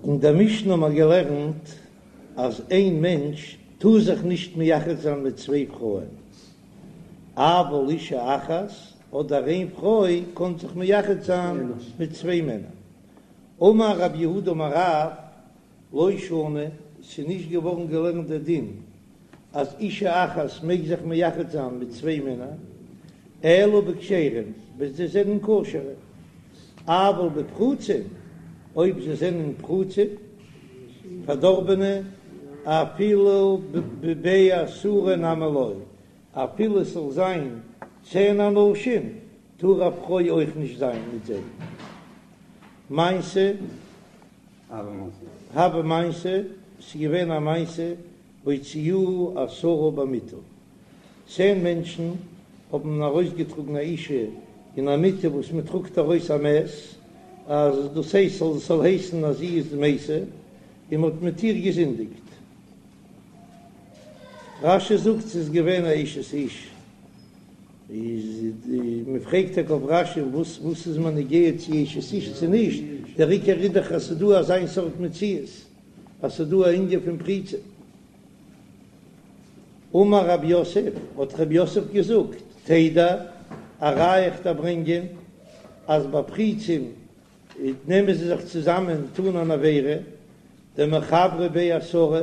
אין דער משנה האבן מיר געלערנט אז איין מענטש טאר זיך נישט מייחד זיין מיט צוויי פרויען, אבל אישה אחת, אדער איין פרוי קען זיך מייחד זיין מיט צוויי מענער. אמר רב יהודה אמר רב, לא שנו, ס'איז נישט געווארן געלערנט דער דין אז אישה אחת מעג זיך מייחד זיין מיט צוויי מענער, אלא בכשרים, ווען זיי זענען כשר'ע, אבל בפרוצים, אויב זיי זענען פרוצים, פארדארבענע, אפילו בבי עשרה נמי לא, אפילו עס זאל זיין צען אנשים, טאר א פרוי אויך נישט זיין מיט זיי. מעשה, הוה מעשה, ס'איז געווען א מעשה והוציאוה עשרה במיטה, צען מענטשן האבן ארויסגעטראגן א אישה אין א מיטה וואס מען טראגט ארויס א מת, אז דאס הייסט זאל זאל הייסן אז זי איז מתה, און מען האט מיט איר געזינדיגט. רש"י זאגט ס'איז געווען א אשת איש, איז מען פרעגט טאקע אויף רש"י וואס וואס איז מיר נוגע צו אשת איש צו נישט, דער עיקר איז דאך אז ס'איז דא אזיין סארט מציאות. אז ס'איז דא א ענין פון פריצה. אמר רב יוסף, האט רב יוסף געזאגט, תדע, א ראיה איך דיר ברענגען, אז ביי פריצים נעמען זיי זיך צוזאמען טון אן עבירה, דמחברי בי עשרה,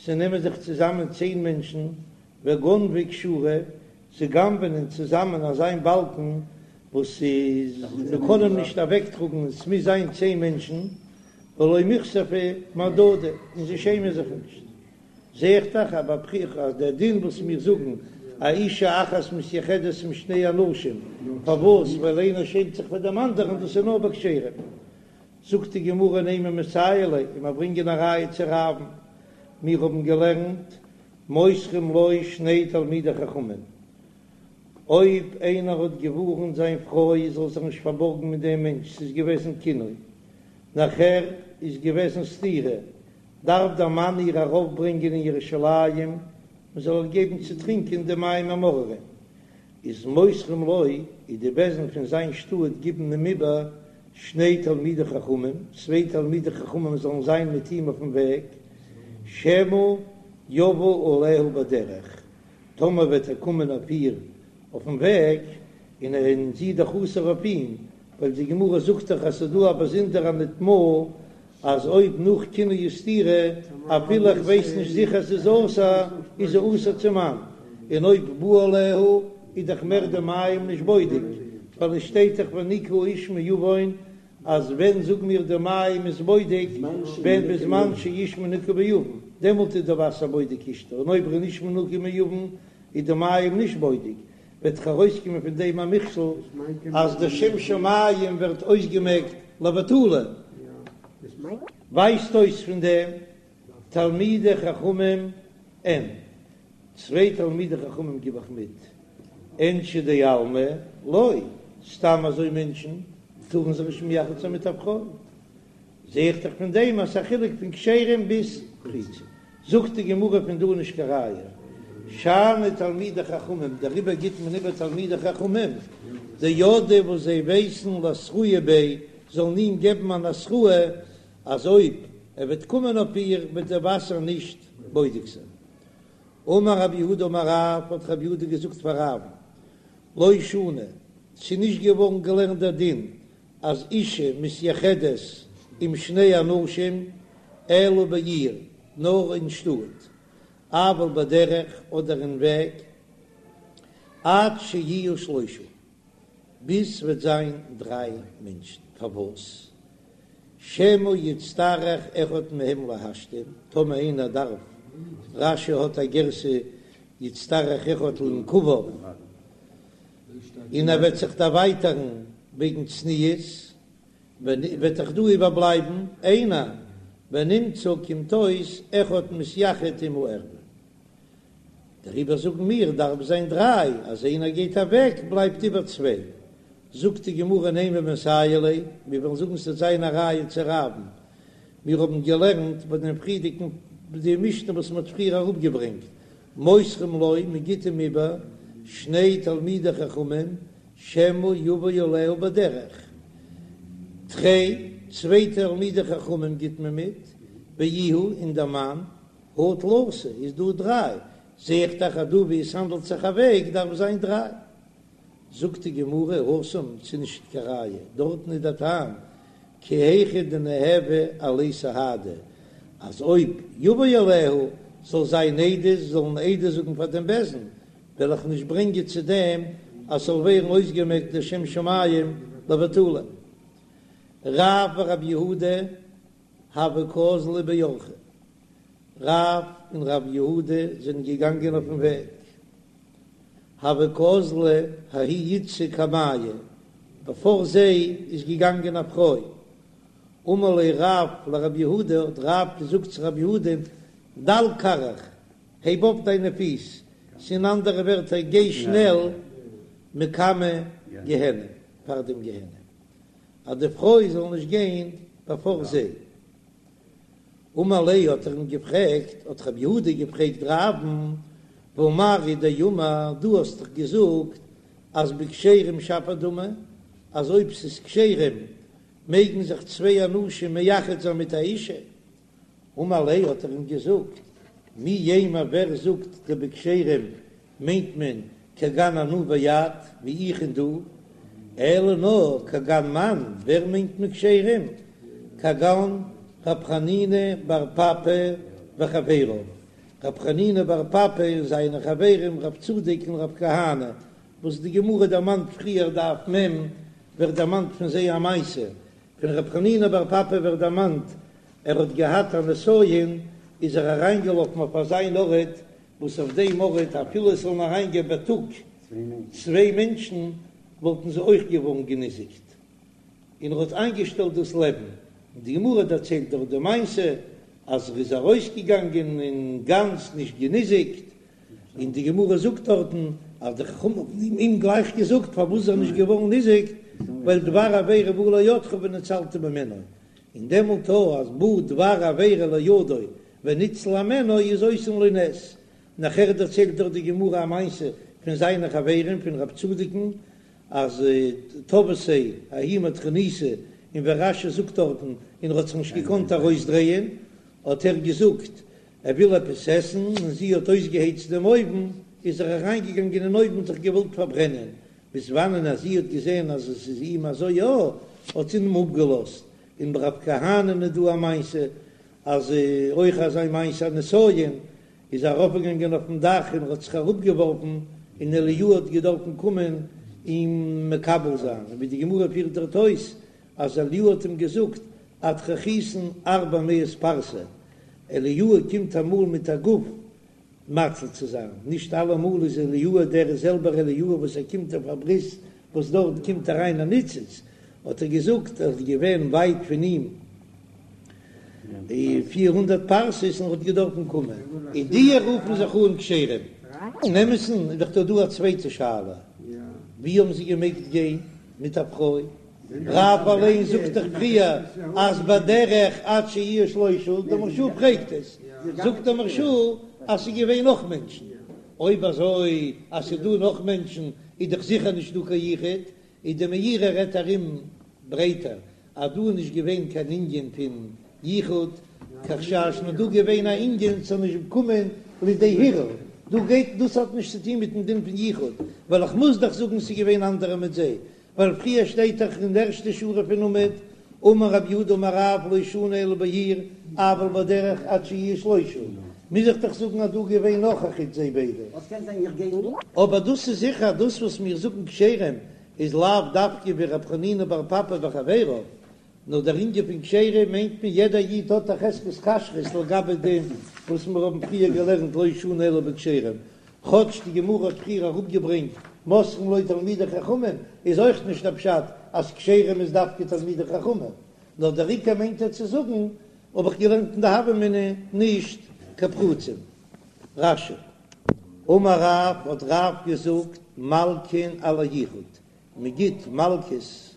ס'נעמען זיך צוזאמען צען מענטשן, וגנבי כשורא, זיי גנב'נען צוזאמען אזיין באלקן וואס איז מ'קען אים נישט אוועקטראגן, עס מוז זיין צען מענטשן, ולא מיכספי מהדדי, און זיי שעמען זיך נישט. זע איך דאך אז ביי פריצים אז דער דין וואס מיר זאגן א אישה אחת מתייחדת עם שני אנשים, פארוואס? ווייל איינער שעמט זיך פאר דעם אנדערן, דאס איז נאר ביי כשרים. זאגט די גמרא נימא מסייע ליה, און מיר ברענגען א ראיה צו רב'ן, מיר האבן געלערנט מוסרים לו שני תלמידי חכמים, אויב איינער האט געווארנט זיין פרוי זאל זיך נישט פארבארגן מיט דעם מענטש, ס'איז געוועזן קינוי, נאכער איז געוועזן סתירה, דארף דער מאן איר ארויפברענגען אין ירושלים מען זאל איר געבן צו טרינקען די מים המאררים, איז מוסרים לו, איז די בית דין פון זיין שטאט גיבן אים איבער שני תלמידי חכמים, צוויי תלמידי חכמים זאלן זיין מיט אים אויפן וועג, שמא יבא עליה בדרך, טאמער וועט ער קומען אויף איר אויפן וועג, און ער און זי איז דאך אסור אויף אים, ווייל די גמרא זאגט דאך אז ס'איז דא א באזונדערע נטמאה, אז אויב נאך קינוי וסתירה, אפילו איך ווייס נישט זיכער ס'איז אסור, איז זי אסור צום מאן, און אויב בא עליה איז דאך מער די מים נישט בודק, ווייל עס שטייט דאך ונקה האיש מעון, אז ווען זאגן מיר די מים איז בודק, ווען בזמן שאיש מנוקה מעון, דעמאלט איז די וואסער בודק אשתו, און אויב ער איז נישט מנוקה מעון איז די מים נישט בודק, וועט דאך ארויסקומען פון דעם א מכשול אז די שם שמים ווערט אויסגעמעקט לבטלה, ווייזט אויס פון דעם תלמידי חכמים אין צוויי תלמידי חכמים גיב איך מיט אינשי דעלמא לא, סתם אזוי מענטשן טארן זיך נישט מייחד זיין מיט א פרוי. זע איך דאך פון דעם אז ס'איז א חילוק פון כשרים ביז פריצים. זאגט די גמרא פון דא נישט קיין ראיה. שאני תלמידי חכמים, דעריבער גיט מען איבער תלמידי חכמים, דידעי וואס זיי ווייסן לאתרויי ביה, זאלן אים געבן אן התראה אז אויב ער וועט קומען אויף איר וועט דער וואסער נישט בודק זיין. אמר רב יהודה אמר רב, האט רב יהודה געזאגט פאר רב'ן, לא שנו, ס'איז נישט געווארן געלערנט דער דין אז אישה מתייחדת עם שני אנשים אלא בעיר, נאר אין שטאט, אבל בדרך אדער אין וועג, עד שיהיו שלושה, ביז ס'וועט זיין דריי מענטשן, פארוואס? שמא יצטרך אחד מהם להשתין, טאמער איינער דארף, רש"י האט א גירסא יצטרך אחד לנקביו, און ער וועט זיך דערווייטערן וועגן צניעות, וועט דאך דא איבערבלייבן איינער, ונמצא קומט אויס אחד מתייחד עם הערוה. דעריבער זאגן מיר דארף זיין דריי, אז איינער גייט אוועק בלייבט איבער צוויי. זאגט די גמרא נימא מסייע ליה, מיר וועלן זאגן ס'וועט זיין א ראיה צו רב'ן, מיר האבן געלערנט ביי דעם פריערדיגן די משנה וואס מ'האט פריער אראפגעברענגט, מוסרים לו, מען גיט אים איבער שני תלמידי חכמים, שמא יבא עליה בדרך. תרי. צוויי תלמידי חכמים גיט מען מיט, ואיהו און דער מאן, הא תלתא איז דא דריי, זע איך דאך אז דא ווי עס האנדלט זיך א וועג דארף זיין דריי. זאגט די גמרא, התם ס'איז נישט קיין ראיה, דארטן איז דער טעם כי היכי דניהוו עליה סהדי, אז אויב יבא עליה זאל זיין עדות, זאלן עדות זאגן פאר דעם בית דין, וועל איך נישט ברענגען צו דעם אז ס'זאל ווערן אויסגעמעקט דער שם שמים לבטלה. רב ורב יהודה הוו קאזלי באורחא, רב און רב יהודה זענען געגאנגען אויפן וועג, הוה קאזלא ההיא איתתא קמייהו, בעפאר זיי איז געגאנגען א פרוי, אמר ליה רב לרב יהודה, האט רב געזאגט צו רב יהודה, דל כרעיך, הייב אויף דיינע פיס, ס'איז אין אנדערע ווערטער גיי שנעל מקמי גיהנם, פאר דעם גיהנם, אז די פרוי זאל נישט גיין בעפאר זיי. אמר ליה האט ער אים געפרעגט, האט רב יהודה געפרעגט רב'ן, והא מר הוא דאמר, דו האסט דאך געזאגט אז בכשרים שפיר דמי, אז אויב ס'איז כשרים מעגן זיך צוויי אנשים מייחד זיין מיט א אישה, אמר ליה האט ער אים געזאגט, מי יימר ווער זאגט דבכשרים מיינט מען כגון אנא ואת, ווי איך און דו, אלא נאר כגון מאן, ווער מיינט מען כשרים? כגון רב חנינא בר פפא וחביריו, רב חנינא בר פפא און זיינע חברים רב צדוק און רב כהנא, וואס די גמרא דערמאנט פריער דף מ' ווערט דערמאנט פון זיי א מעשה, פון רב חנינא בר פפא ווערט דערמאנט ער האט געהאט א נסיון איז ער אריינגעלאפן אויף אזיין ארט וואס אויף דעם ארט אפילו עס זאלן אריינגיין בייטאג צוויי מענטשן וואלטן זיי אויך געווארן געניזיקט, און ער האט איינגעשטעלט דאס לעבן, און די גמרא דערציילט דארט די מעשה אז ער איז ארויסגעגאנגען און גאנץ נישט געניזיקט, און די גמרא זאגט דארטן אז די חכמים האבן אים גלייך געזאגט פארוואס איז ער נישט געווארן ניזוק, ווייל דבר עבירה בא לידך וניצלת ממנו, און דעמאלט אז בא דבר עבירה לידו וניצל הימנו איז עושין לו נס. נאכער דערציילט דארט די גמרא א מעשה פון זיינע חברים פון רב צדוק'ן אז תבעתיה ההיא מטרוניתא און ווי רש"י זאגט דארטן און ער האט זיך נישט געקאנט ארויסדרייען האט ער געזאגט ער וויל עפעס עסן און זי האט אויסגעהייצט דעם אויוון איז ער אריינגעגאנגען אין אויוון און זיך געוואלט פארברענען ביז וואנען אז זי האט געזען אז עס איז אים אזוי יא האט זי אים אפגעלאזט און ביי רב כהנא'ן איז דא א מעשה אז אויך אזא מעשה א נסיון איז ער ארויפגעגאנגען אויפן דאך און האט זיך אראפגעווארפן און אליהו האט געדארפן קומען אים מקבל זיין, און ווי די גמרא פירט דארט אויס אז אליהו האט אים געזאגט אטרחתן ארבע מאות פרסה, אליהו קומט אמאל מיט א גוף מציל צו זיין, נישט אלעמאל איז אליהו דער זעלבער אליהו וואס ער קומט אויף א ברית וואס דארט קומט אריין א ניצוץ, האט ער געזאגט ער איז געווען ווייט פון אים 400 פרסות און האט געדארפן קומען, און די רופן זיך אן כשרים. אין אמת'ן איז דאך דא דא א צווייטע שאלה, ווי האבן זיי געמעגט גיין מיט א פרוי? רב אליין זאגט דאך פריער אז בדרך עד שיהיו שלושה, דער מהרש"א פרעגט עס, זאגט דער מהרש"א אז ס'איז געווען נאך מענטשן, אויב אזוי אז ס'איז דא נאך מענטשן איז דאך זיכער נישט דא קיין יחוד, איז די מאירי רעדט ארום ברייטער אז דא איז נישט געווען קיין ענין פון יחוד כחשש נאר דא געווען א ענין ס'זאל נישט קומען לידי הרהור, דא גייט דאס האט נישט צוטון מיטן דין פון יחוד, ווייל איך מוז דאך זאגן ס'איז געווען אנדערע מיט זיי, ווייל פריער שטייט דאך אין די ערשטע שורה פון עמוד, אמר רב יהודה אמר רב לא שנו אלא בעיר, אבל בדרך עד שיהיו שלושה, מוז איך דאך זאגן אז דא געווען נאך א חוץ זיי ביידע. אבער דאס איז זיכער אז דאס וואס מיר זאגן כשרים איז לאו דווקא ווי רב חנינא בר פפא וחביריו, נאר דער ענין פון כשרים מיינט מען יעדער איד האט א חזקת כשרות לגבי דעם וואס מיר האבן פריער געלערנט לא שנו אלא בכשרים, כאטש די גמרא האט פריער אראפגעברענגט מוסרין לו תלמידי חכמים איז אויך נישט דער פשט אז כשרים איז דווקא תלמידי חכמים, נאר דער עיקר מיינט ער צו זאגן האב איך געלערנט אין די הוה אמינא נישט קיין פרוצים. רש"י. אמר רב, האט רב געזאגט, מלקין על היחוד, מען גיט מלקות,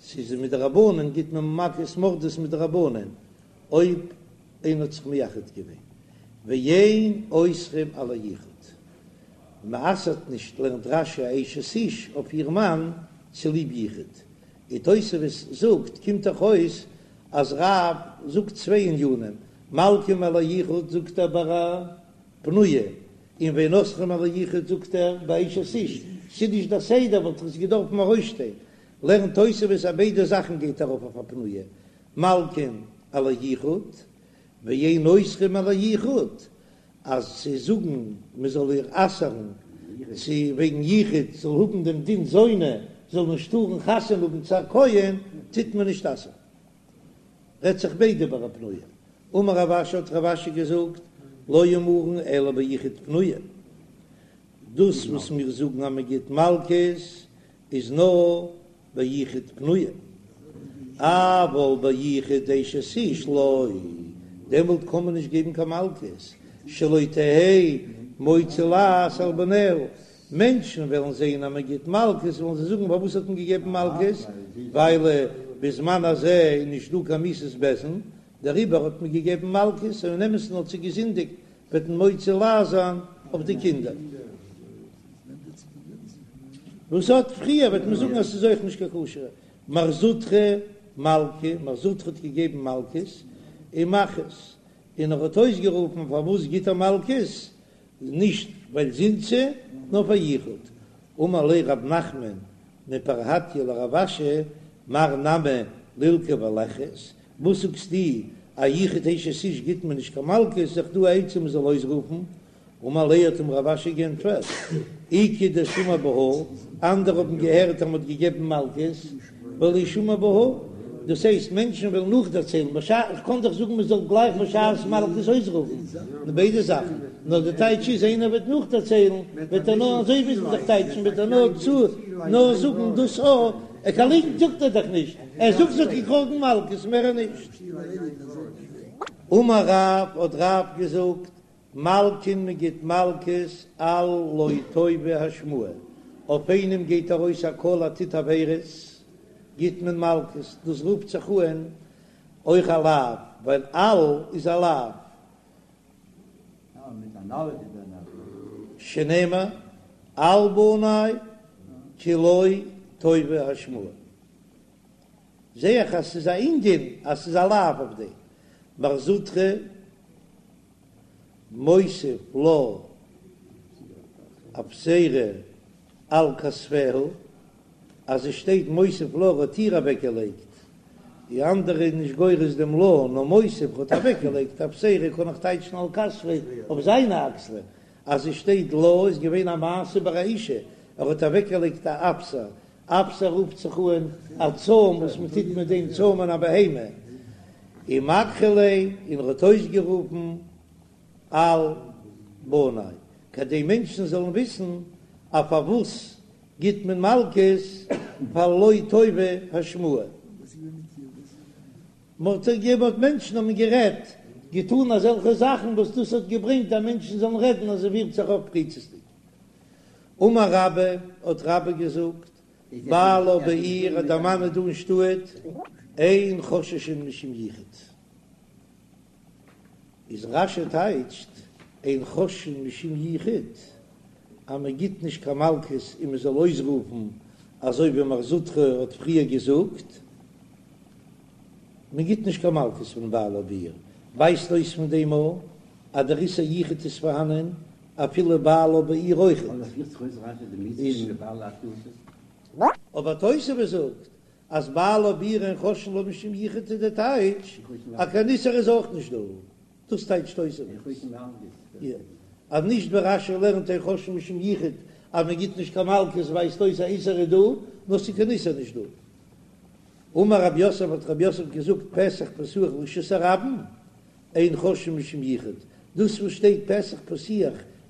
ס'איז מדרבנן גיט מען מכות מרדות מדרבנן, אויב איינער האט זיך מייחד געווען, ואין אוסרים על היחוד, מען אסר'ט נישט לערנט רש"י א אשת איש אויף איר מאן צוליב יחוד, און תוספות זאגט קומט דאך אויס. אז רב זאגט צוויי ענינים, מלקין על היחוד זאגט ער ביי א פנויה, און ואין אוסרין על היחוד זאגט ער ביי אשת איש, ס'איז נישט דער סדר וואלט עס געדארפן ארויסשטיין, לערנט תוספות אז ביידע זאכן גייט ארויף אויף א פנויה, מלקין על היחוד ואין אוסרין על היחוד, אז צו זאגן מען זאל איר אסר'ן צו וועגן יחוד זאל האבן דעם דין זונה זאל נישט טארן חתונה האבן צו א כהן טוט מען נישט אסר'ן. רעדט זיך ביידע ביי א פנויה. אמר רב אשי האט רב אשי געזאגט לא אמרן אלא ביחוד פנויה, דאס וואס מיר זאגן אז מען גיט מלקות איז נאר ביחוד פנויה, אבל ביחוד אשת איש לא, דעמאלט קען מען נישט געבן קיין מלקות, שלא תהא מוציא לעז על בניה, מענטשן וועלן זען אז מען גיט מלקות וועלן זיי זאגן פארוואס האט מען געגעבן מלקות, ווייל בזמן הזה איז נישט דא קיין מיתת בית דין, דעריבער האט מען געגעבן מלקות, און אין אמת'ן האט זי געזינדיגט, וועט מען מוציא לעז זיין אויף די קינדער. וואס האט פריער וועט מען זאגן אז ס'איז אויך נישט קיין כשר'ע. מר זוטרא מלקי, מר זוטרא האט געגעבן מלקות ומכריז, און ער האט אויסגערופן פארוואס גיט ער מלקות, נישט ווייל זינתה, נאר פאר יחוד. אמר ליה רב נחמן מפרהטיא לרב אשי, מר נמי לילקי וליכריז, וואס זאגסטו א יחוד אשת איש גיט מען נישט קיין מלקות, איז דאך דא א עצה מען זאל אויסרופן, אמר ליה האט אים רב אשי גענטפערט, איכא דשמעי בהא, אנדערע האבן געהערט אז מען האט געגעבן מלקות, ולא שמעי בהא, דאס הייסט מענטשן וועלן נאכדערציילן, בשעת, איך קען דאך זאגן מען זאל גלייך בשעת מלקות אויסרופן, ביידע זאכן, נאר די טייטש איז איינער וועט נאכדערציילן, וועט ער נאר אזוי מוז מען דאך טייטשן, וועט ער נאר צו נאר זאגן דאס א, קיין ליגנט זאגט ער דאך נישט, ער זאגט זי האט געקראגן מלקות מער נישט. אמר רב, האט רב געזאגט, מלקין מען גיט מלקות על לא טובה השמועה, אויף איינעם גייט ארויס א קול ער טוט עבירות, גיט מען מלקות, דאס רופט זיך אן אויך א לאו, ווייל על איז א לאו. שנאמר על בני כי לא טובה השמועה. זע איך אז ס'איז א ענין אז ס'איז א לאו אויף דעם. מר זוטרא מותיב לה אפסירה על כתפיה, אז עס שטייט מותיב לה האט איר אוועקגעלייגט, די אנדערע איז נישט גורס דעם לה, נאר מותיב האט אוועקגעלייגט אפסירה קען איך טייטשן על כתפיה אויף זיינע אקסלען, אז עס שטייט לה איז געווען א מעשה ביי א אישה, ער האט אוועקגעלייגט א אפסר, אפסר רופט זיך אן א צוים וואס מען טוט מיט דעם צוימען א בהמה, ומקרי ליה, און ער האט אויסגערופן על בני, כדי מענטשן זאלן וויסן אז פארוואס גיט מען מלקות פאר לא טובה השמועה. מ'האט געהערט מענטשן האבן גערעדט, געטאן אזעלכע זאכן וואס דאס האט געברענגט אז מענטשן זאלן רעדן אז ער פירט זיך אויף פריצות'דיג. אמר רבה, האט רבה געזאגט, בעלה בעיר אז דער מאן איז דא אין שטאט, אין חוששין משום יחוד. איז רש"י טייטשט אין חוששין משום יחוד אז מען גיט נישט קיין מלקות און מען זאל אויסרופן אזוי ווי מר זוטרא האט פריער געזאגט, מען גיט נישט קיין מלקות פון בעלה בעיר, ווייזט אויס פון דעם א אז דער איסור יחוד איז פארהאנען אפילו בעלה בעיר אויכעט. אבער תוספות זאגט אז בעלה בעיר אין חוששין לה משום יחוד איז די טייטש אז קיין איסור איז אויך נישט דא, דאס טייטשט תוספות אז נישט ווי רש"י לערנט אין חוששין משום יחוד אז מען גיט נישט קיין מלקות ווייזט אויס אז איסור איז דא, נאר ס'איז קיין איסור נישט דא. אמר רב יוסף האט רב יוסף געזאגט פתח פתוח לרשות הרבים אין חוששין משום יחוד, דאס וואס שטייט פתח פתוח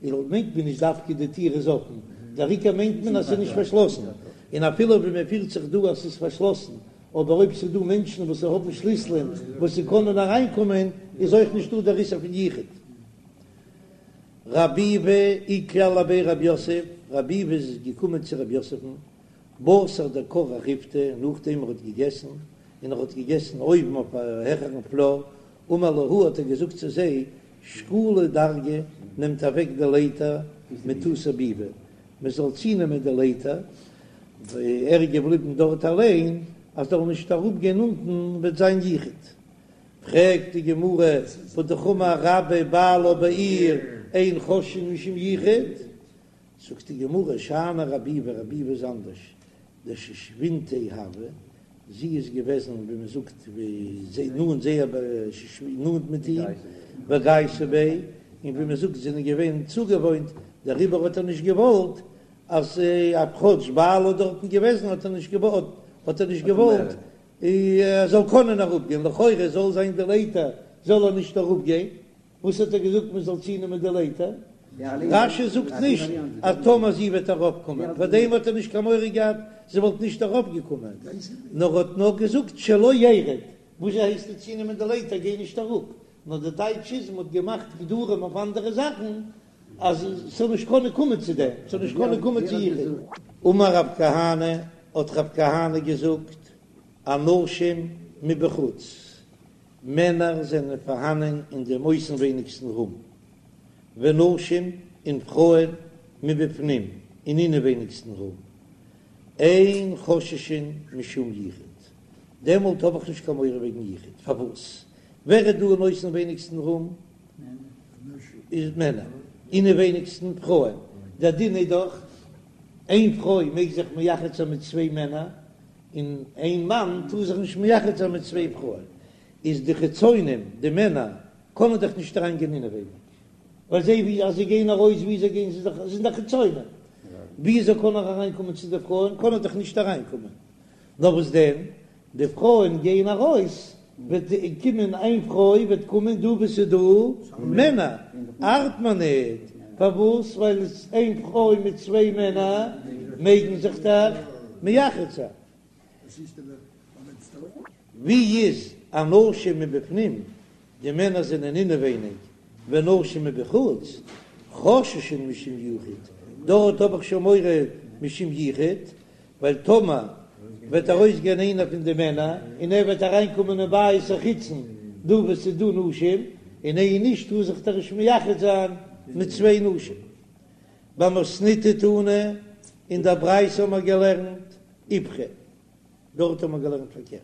איז מיינט מען נישט דווקא די טיר איז אפן, דער עיקר מיינט מען אז ס'איז נישט פארשלאסן, און אפילו ווי מען פירט זיך דא אז ס'איז פארשלאסן, אבער אויב ס'איז דא מענטשן וואס האבן שליסלען וואס זיי קענען אריינקומען איז אויך נישטא דער איסור פון יחוד. רב ביבי איקלע לבי רב יוסף, רב ביבי איז געקומען צו רב יוסף'ן, בתר דכרך ריפתא, נאכדעם ער האט געגעסן, און ער האט געגעסן אויבן אויף א העכערן פלאר, אמר להו האט ער געזאגט צו זיי, שקולו דרגא, נעמט אוועק די לייטער מתותי ביבי, מען זאל צונעמען די לייטער, ער איז געבליבן דארט אליין. אז זאל נישט אראפ גיין אונטן וועט זיין יחוד. פרעגט די גמרא, והאמר רבה בעלה בעיר אין חוששין משום יחוד, זאגט די גמרא, שאני רבי ביבי, רבי ביבי איז אנדערש, דשושבינתיה הוה, זי איז געוועזן ווי מען זאגט ווי נאנט זייער נאנט מיט אים, וגייסה ביה, און ווי מען זאגט זיי זענען געווען צוגעוואוינט, דעריבער האט ער נישט געוואלט אז כאטש בעלה איז דארטן געוועזן האט ער נישט געוואלט האט ער נישט געוואלט ער זאל קענען אראפגיין, לכאורה זאל זיין די לייטער זאל ער נישט אראפגיין, וואס האט ער געזאגט מען זאל צונעמען די לייטער? רש"י זאגט נישט אז טאמער זי וועט אראפקומען, פאר דעם האט ער נישט קיין מורא געהאט זי וואלט נישט אראפגעקומען, נאר האט נאר געזאגט שלא ירד, וואס הייסט די צונעמען די לייטער גיי נישט אראפ, נאר די טייטש איז מען האט געמאכט גדרים אויף אנדערע זאכן אז ס'זאל נישט קענען קומען צו דעם, ס'זאל נישט קענען קומען צו יחוד. אמר רב כהנא, האט רב כהנא געזאגט, אנשים מבחוץ, מענער זענען פארהאנען אין דעם אויסנווייניגסטן רום, ונשים און פרויען מבפנים אין אינעווייניגסטן רום, אין חוששין משום יחוד, דעמאלט האב איך נישט קיין מורא וועגן יחוד, פארוואס? ווער איז דא אין אויסנווייניגסטן רום? איז מענער, אינעווייניגסטן פרויען, דער דין איז דאך איין פרוי מעג זיך מייחד זיין מיט צוויי מענער, און איין מאן טאר זיך נישט מייחד זיין מיט צוויי פרויען, איז די חיצונים, די מענער, קענען דאך נישט אריין גיין אינעווייניג, ווייל זיי ווי אז זיי גייען ארויס ווי זיי גייען זיי זיך זענען דאך חיצונים, ווי אזוי קען ער אריין קומען צו די פרויען, קען ער דאך נישט אריין קומען, נאר וואס דען, די פרויען גייען ארויס, וועט קומען איין פרוי וועט קומען דא וואו ס'איז דא מענער, ארט מיר ניט, פארוואס? ווייל איין פרוי מיט צוויי מענער מעגן זיך דאך מייחד זיין. ווי איז אנשים מבפנים, די מענער זענען אינעווייניג, ונשים מבחוץ, חוששין משום יחוד, דארט האב איך שוין מורא משום יחוד, ווייל טאמער וועט ארויסגיין איינער פון די מענער און ער וועט אריינקומען אין בית החיצון דא וואו ס'איז דא נשים, און איין איש טאר זיך דאך נישט מייחד זיין מיט צוויי נשים. במתניתא תנא, אין דער ברייתא האבן מיר געלערנט איפכא, דארט האבן מיר געלערנט פארקערט.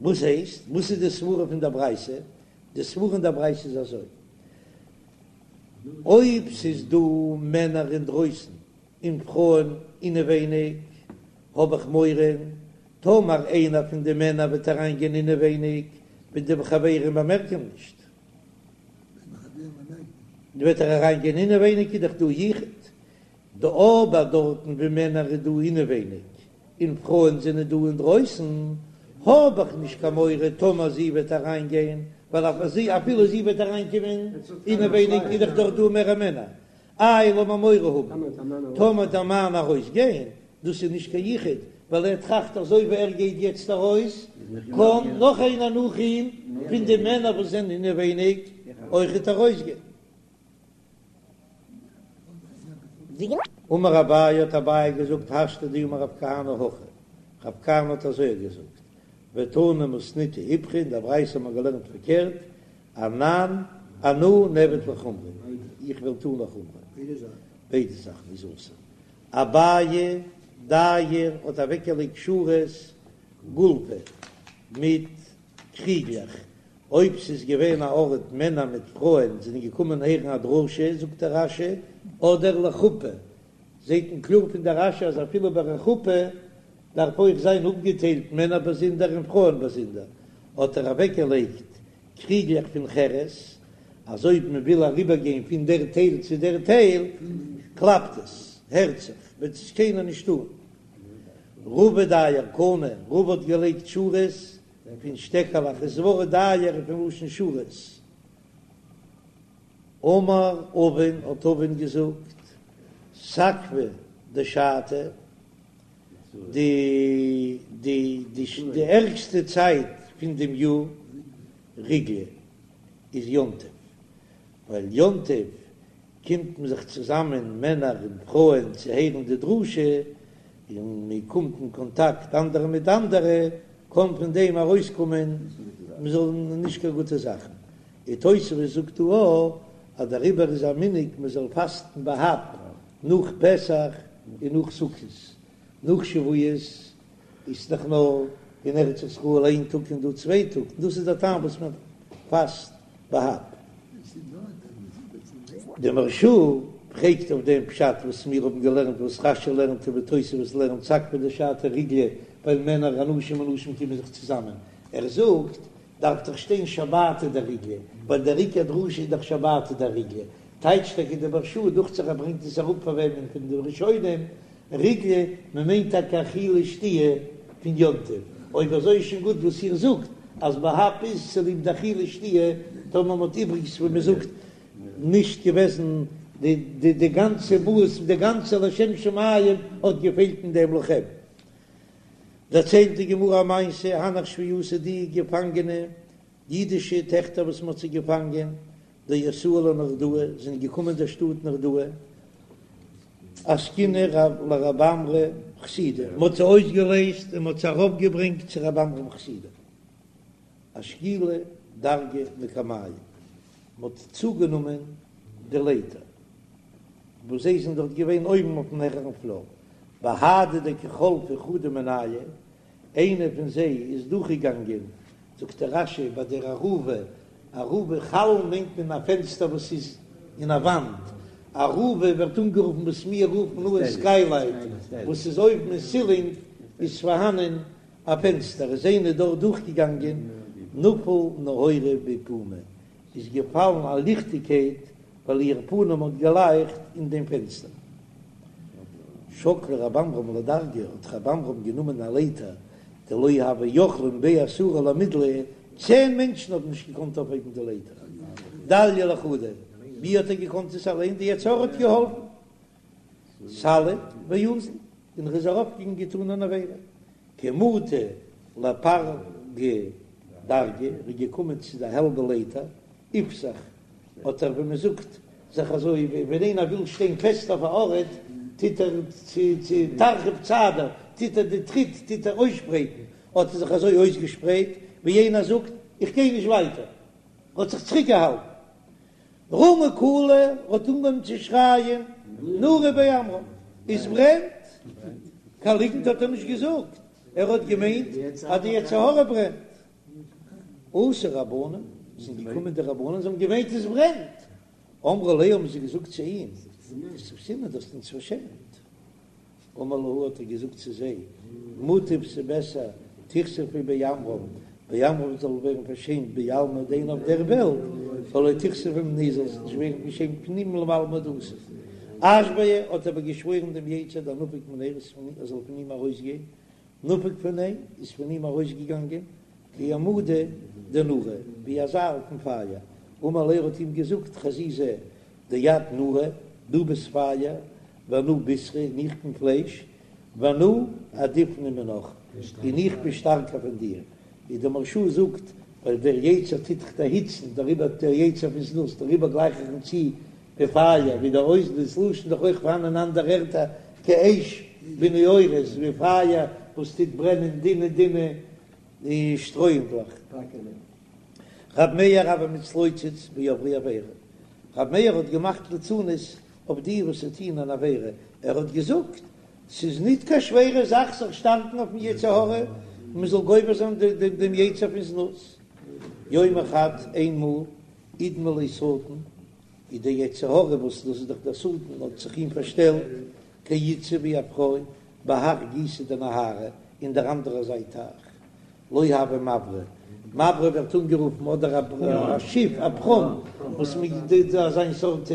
וואס הייסט? וואס איז די סברה פון דער ברייתא? די סברה אין דער ברייתא איז אזוי, אויב ס'איז דא מענער אינדרויסן און פרויען אינעווייניג, האב איך מורא טאמער איינער פון די מענער וועט אריינגיין אינעווייניג וועט די חברים באמערקען נישט, וועט ער אריינגיין אינעווייניג איז דאך דא יחוד, דא אבער דארטן ווי מענער איז דא אינעווייניג און פרויען זענען דא אינדרויסן, האב איך נישט קיין מורא טאמער זי וועט אריינגיין, ווייל אפילו זי וועט אריינקומען אינעווייניג איז דאך דארט דא מער מענער, איי לאמיר מורא האבן טאמער דער מאן ארויס גיין, דאס איז נישט קיין יחוד, ווייל ער טראכט אזוי ווי ער גייט יעצט ארויס, קען נאך איינער נאך אים פון די מענער וואס זענען אינעווייניג אויכעט ארויס גיין. אמר אביי האט אביי געזאגט השתא דאמר רב כהנא הכי, רב כהנא האט אזוי געזאגט, ותנא מתניתא איפכא, אין דער ברייתא האט מען געלערנט פארקערט, אנן אנא נעביד לחומרא, איך וועל טון לחומרא, ביידע זאכן איז אסור. אביי דייר האט אוועקגעלייגט שורות גולפי מיט קריגלעך, אויב ס'איז געווען א ארט מענער מיט פרויען זענען געקומען הערן א דרשה, זאגט דער רש"י, אדער לחופה, זעט מען קלאר פון דער רש"י אז אפילו ביי א חופה דארף אויך זיין אפגעטיילט מענער באזונדער און פרויען באזונדער, האט ער אוועקגעלייגט קריגלעך פון חרס, אז אויב מען וויל אריבערגיין פון דער טייל צו דער טייל, קלאפט עס, הערט זיך, וועט עס קיינער נישט טאן. רבא דייר קני, רבא האט געלייגט שורות פון שטעקעלעך, ס'ווארט דייר איז פון לשון שורות. אמר אבין, האט אבין געזאגט, סקבא דשתא, די די די ערגסטע צייט פון דעם יאר ריגלא איז יום טוב, ווייל יום טוב קומט מען זיך צוזאמען מענער און פרויען צו הערן די דרשה, און מען קומט אין קאנטאקט אנדערע מיט אנדערע, קען פון דעם ארויסקומען מען זאל נישט קיין גוטע זאכן. און תוספות זאגט דא אויך אז דעריבער איז א מנהג מען זאל פאסטן בה"ב נאך פסח און נאך סוכות, נאך שבועות. איז דאך נאר אין ארץ ישראל איין טאג און דא צוויי טאג, און דאס איז דער טעם וואס מען פאסט בה"ב. די מהרש"א פרעגט אויף דעם פשט וואס מיר האבן געלערנט וואס רש"י לערנט און ווי תוספות לערנט סקבא דשתא ריגלא ווייל מענער אנשים ונשים קומען זיך צוזאמען, ער זאגט דארף דאך שטיין שבתא דריגלא ווייל דער עיקר דרשה איז דאך שבתא דריגלא, טייטשט טאקע די מהרש"א דוכט זיך ער ברענגט עס אראפ פאר וועמען פון די ראשונים ריגלא, מען מיינט טאקע אכילה שתיה פון יום טוב, אויב אזוי איז שוין גוט וואס איר זאגט אז בה"ב איז צוליב די אכילה שתיה, טאמער מען האט איבריגס ווי מען זאגט נישט געוועזן די די די גאנצע מהות די גאנצע לשם שמים האט געפעלט אין דעם לכם. דערציילט די גמרא א מעשה, הנך שבויתא די געפאנגענע אידישע טעכטער וואס מען האט זיי געפאנגען, דאתאי לנהרדעא, זענען געקומען דער שטאט נהרדעא, אסקינהו לרב עמרם חסידא, מען האט זיי אויסגעלייזט און מען האט זיי ארויפגעברענגט צו רב עמרם חסידא, אשקולו דרגא מקמייהו, מען האט צוגענומען די לייטער וואס זיי זענען דארט געווען אויבן אויפן העכערן פלאר, בהדי דקא חלפה חדא מינייהו, איינע פון זיי איז דורכגעגאנגען, זאגט דער רש"י ביי דער ארובה, ארובה חלון מיינט מען א פענסטער וואס איז אין א וואנט, ארובה ווערט אנגערופן וואס מיר רופן אן סקיילייט, וואס איז אויבן אין סילינג איז פארהאנען א פענסטער, איז איינע דארט דורכגעגאנגען, נפל נהורא בפומיה, איז געפאלן א ליכטיגקייט ווייל איר פנים האט געלייכט אין דעם פענסטער. שקל רב עמרם לדרגא, האט רב עמרם גענומען א לייטער, דלא הוו יכלין בי עשרה למידליה, צען מענטשן האבן נישט געקאנט אויפהייבן די לייטער, דליה לחודיה, ווי האט ער געקאנט עס אליין, די יצר הרע האט געהאלפן, סליק ואזיל, און ער איז ארויפגעגאנגען געטאן אן עבירה, כי מטא לפלגא דרגא, ער איז געקומען צו די האלבע לייטער, איפתח, האט ער ווי מען זאגט זיך אזוי ווי ווען איינער וויל שטיין פעסט אויף א ארט טוט ער צו צו תרחיב צעדא טוט ער די טריט טוט ער אויסשפרייטן, האט ער זיך אזוי אויסגעשפרייט ווי איינער זאגט איך גיי נישט ווייטער, האט זיך צוריק געהאלטן. רמא קלא האט אנגעהויבן צו שרייען נורא בי עמרם, עס ברענט! קיין ליגנט האט ער נישט געזאגט, ער האט געמיינט אז די יצר הרע ברענט. אתו רבנן, זענען געקומען די רבנן, זיי האבן געמיינט עס ברענט, אמרו ליה האבן זיי געזאגט צו אים, כסיפתינן דו האסט אונז פארשעמט. אמר להו האט ער געזאגט צו זיי, מוטב ס'בעסער תיכספו בי עמרם, בי עמרם זאל ווערן פארשעמט בעלמא דין אויף דער וועלט, ולא תיכספו מיניה זאל זיך נישט ווערן פארשעמט פון אים לעלמא דאתי. אשבעיה האט אבער געשוואוירן דעם יצר דנפיק מיניה ער זאל פון אים ארויסגיין, נפק מיניה איז פון אים ארויסגעגאנגען כי עמודא דנורא, ווי א זייל פון פייער, אמר ליה האט אים געזאגט חזי זע דאת נורא, דו ביסט פייער, ואנא בישרא און איך בין פלייש, ואנא עדיפנא מינך, און איך בין שטארקער פון דיר, ווי דער מהרש"א זאגט, ווייל דער יצר טוט דיך דערהיצן, דעריבער דער יצר פון זנות, דעריבער גלייך איך אים צו ווי פייער, ווי דער אויס דאס לשון דאך אויך פארהאן אין אנדערע ערטער כאש בנעורת, ווי פייער וואס טוט ברענען דינע דינע שטרויענדלעך. רב מאיר הוה מתלוצץ בעוברי עבירה, רב מאיר האט געמאכט ליצנות אויף די וואס טוען אן עבירה, ער האט געזאגט, ס'איז ניט קיין שווערע זאך זיך שטארקן אויפן יצר הרע, מען זאל גובר זיין דעם יצר פון זנות. יומא חד, איינמאל, אידמי ליה שטן, איז דער יצר הרע וואס דאס איז דאך דער שטן האט זיך אים פארשטעלט כאיתתא ווי א פרוי בהך גיסא דנהרא אין דער אנדערער זייט טייך לא הוה מברא, מברא ווערט אנגערופן אדער א שיף א פראם וואס מיט אזיין סארט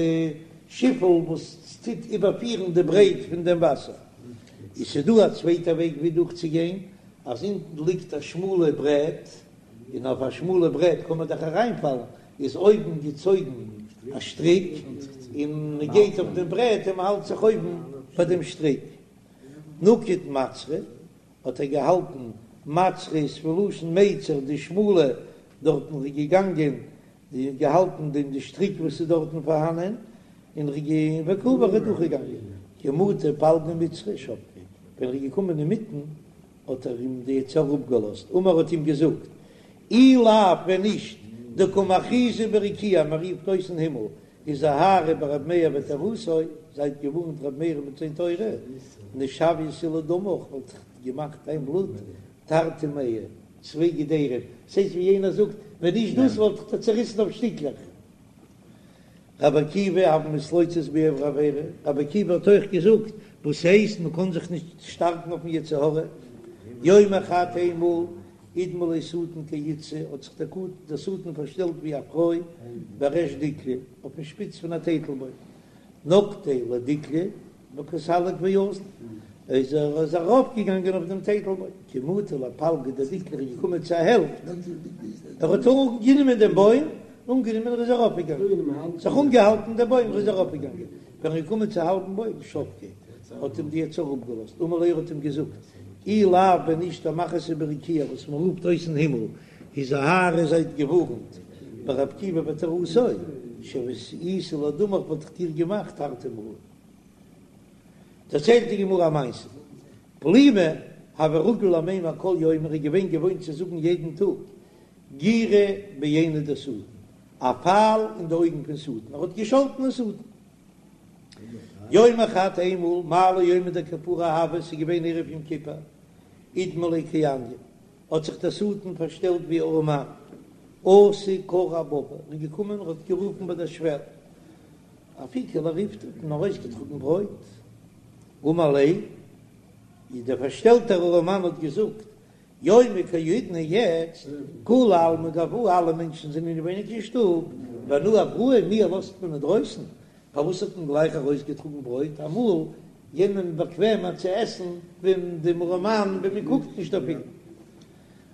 שיפל וואס טוט איבערפירן די ברייט פון דעם וואסער, איז ס'דא א צווייטע וועג ווי דורך צו גיין אז אונטן ליגט א שמאלע ברעט און אויף א שמאלע ברעט קען מען דאך אריינפאלן איז אויבן געצויגן א שטריק און מען גייט אויף דעם ברעט און מען האלט זיך אויבן ביי דעם שטריק. נקיט מצרא האט ער געהאלטן, מצרא איז פון לשון מיצר די שמאלע, דארטן איז ער געגאנגען געהאלטן דעם די שטריק וואס איז דארטן פארהאנען, און ער איז וקא עבר איז דורכגעגאנגען, כי מטא פלגא מצרא שבקיה, ווען ער איז געקומען אינמיטן האט ער אים די יצר אפגעלאזט, אמר האט אים געזאגט, אי לאו ווען נישט דקא מכריזי ברקיעא מען רופט אויס אין הימל. הזהרו ברבי מאיר ותורתו, זייט געווארנט רבי מאיר מיט זיין תורה, נשויתיה לדמך, וואלט איך געמאכט דיין בלוט תרתי מעי, צוויי געדערים, ס'הייסט ווי יענער זאגט, ווען נישט דאס וואלט איך דיר צעריסן אויף שטיקלעך. רבי עקיבא הוה מתלוצץ בעוברי עבירה, רבי עקיבא האט אויך געזאגט, וואס הייסט מען קען זיך נישט שטארקן אויפן יצר הרע? יומא חד איינמאל אידמי ליה שטן כאיתתא האט זיך דער שטן פארשטעלט ווי א פרוי בריש דיקלא אויפן שפיץ פון א טייטלבוים, נקטיה לדיקלא וקא סליק ואזיל, איז ער איז ארויפגעגאנגען אויף דעם טייטלבוים, כי מטא לפלגא דדיקלא איז געקומען צו א העלפט, ער האט אנגענומען דעם בוים, אנגענומען ער איז ארויפגעגאנגען, זיך אנגעהאלטן דעם בוים ער איז ארויפגעגאנגען, ווען ער איז געקומען צו האלבן בוים שבקיה, האט אים די יצר אפגעלאזט, אמר ליה האט אים געזאגט, אי לאו ווען נישט דמכריז ברקיעא וואס מען רופט אויס אין הימל, הזהרו זייט געווארנט ברבי עקיבא ותורתו, שויתיה לדמך וואלט איך דיר געמאכט תרתי מעי. דערציילט די גמרא א מעשה, פלימא הוה רגיל למימר כל יומא, ער איז געווען געוואוינט צו זאגן יעדן טאג גירא בעיניה דשטן, א פייל אין די אויגן פון שטן, ער האט געשאלטן אין שטן. יומא חד איינמאל, מעלי יומא דכיפורי הוה, ס'איז געווען ערב יום כיפור, אידמי ליה כעניא, האט זיך דער שטן פארשטעלט ווי ארעמאן, אתא קרא אבבא, ער איז געקומען און האט גערופן ביי דער שוועל, אפיקו לריפתא, האט מען ארויסגעטראגן ברויט, אמר ליה, איז דער פארשטעלטער ארעמאן האט געזאגט, יומא כי האידנא יעצט, כולי עלמא גואי, אלע מענטשן זענען אינעווייניג אין שטוב, ואנא אבראי, מיר לאזט מען אינדרויסן, פארוואס האט מען גלייך ארויסגעטראגן ברויט? אמאל יענעם באקוועמער צו עסן ווען דעם ארעמאן ווען מען קוקט נישט אויף אים.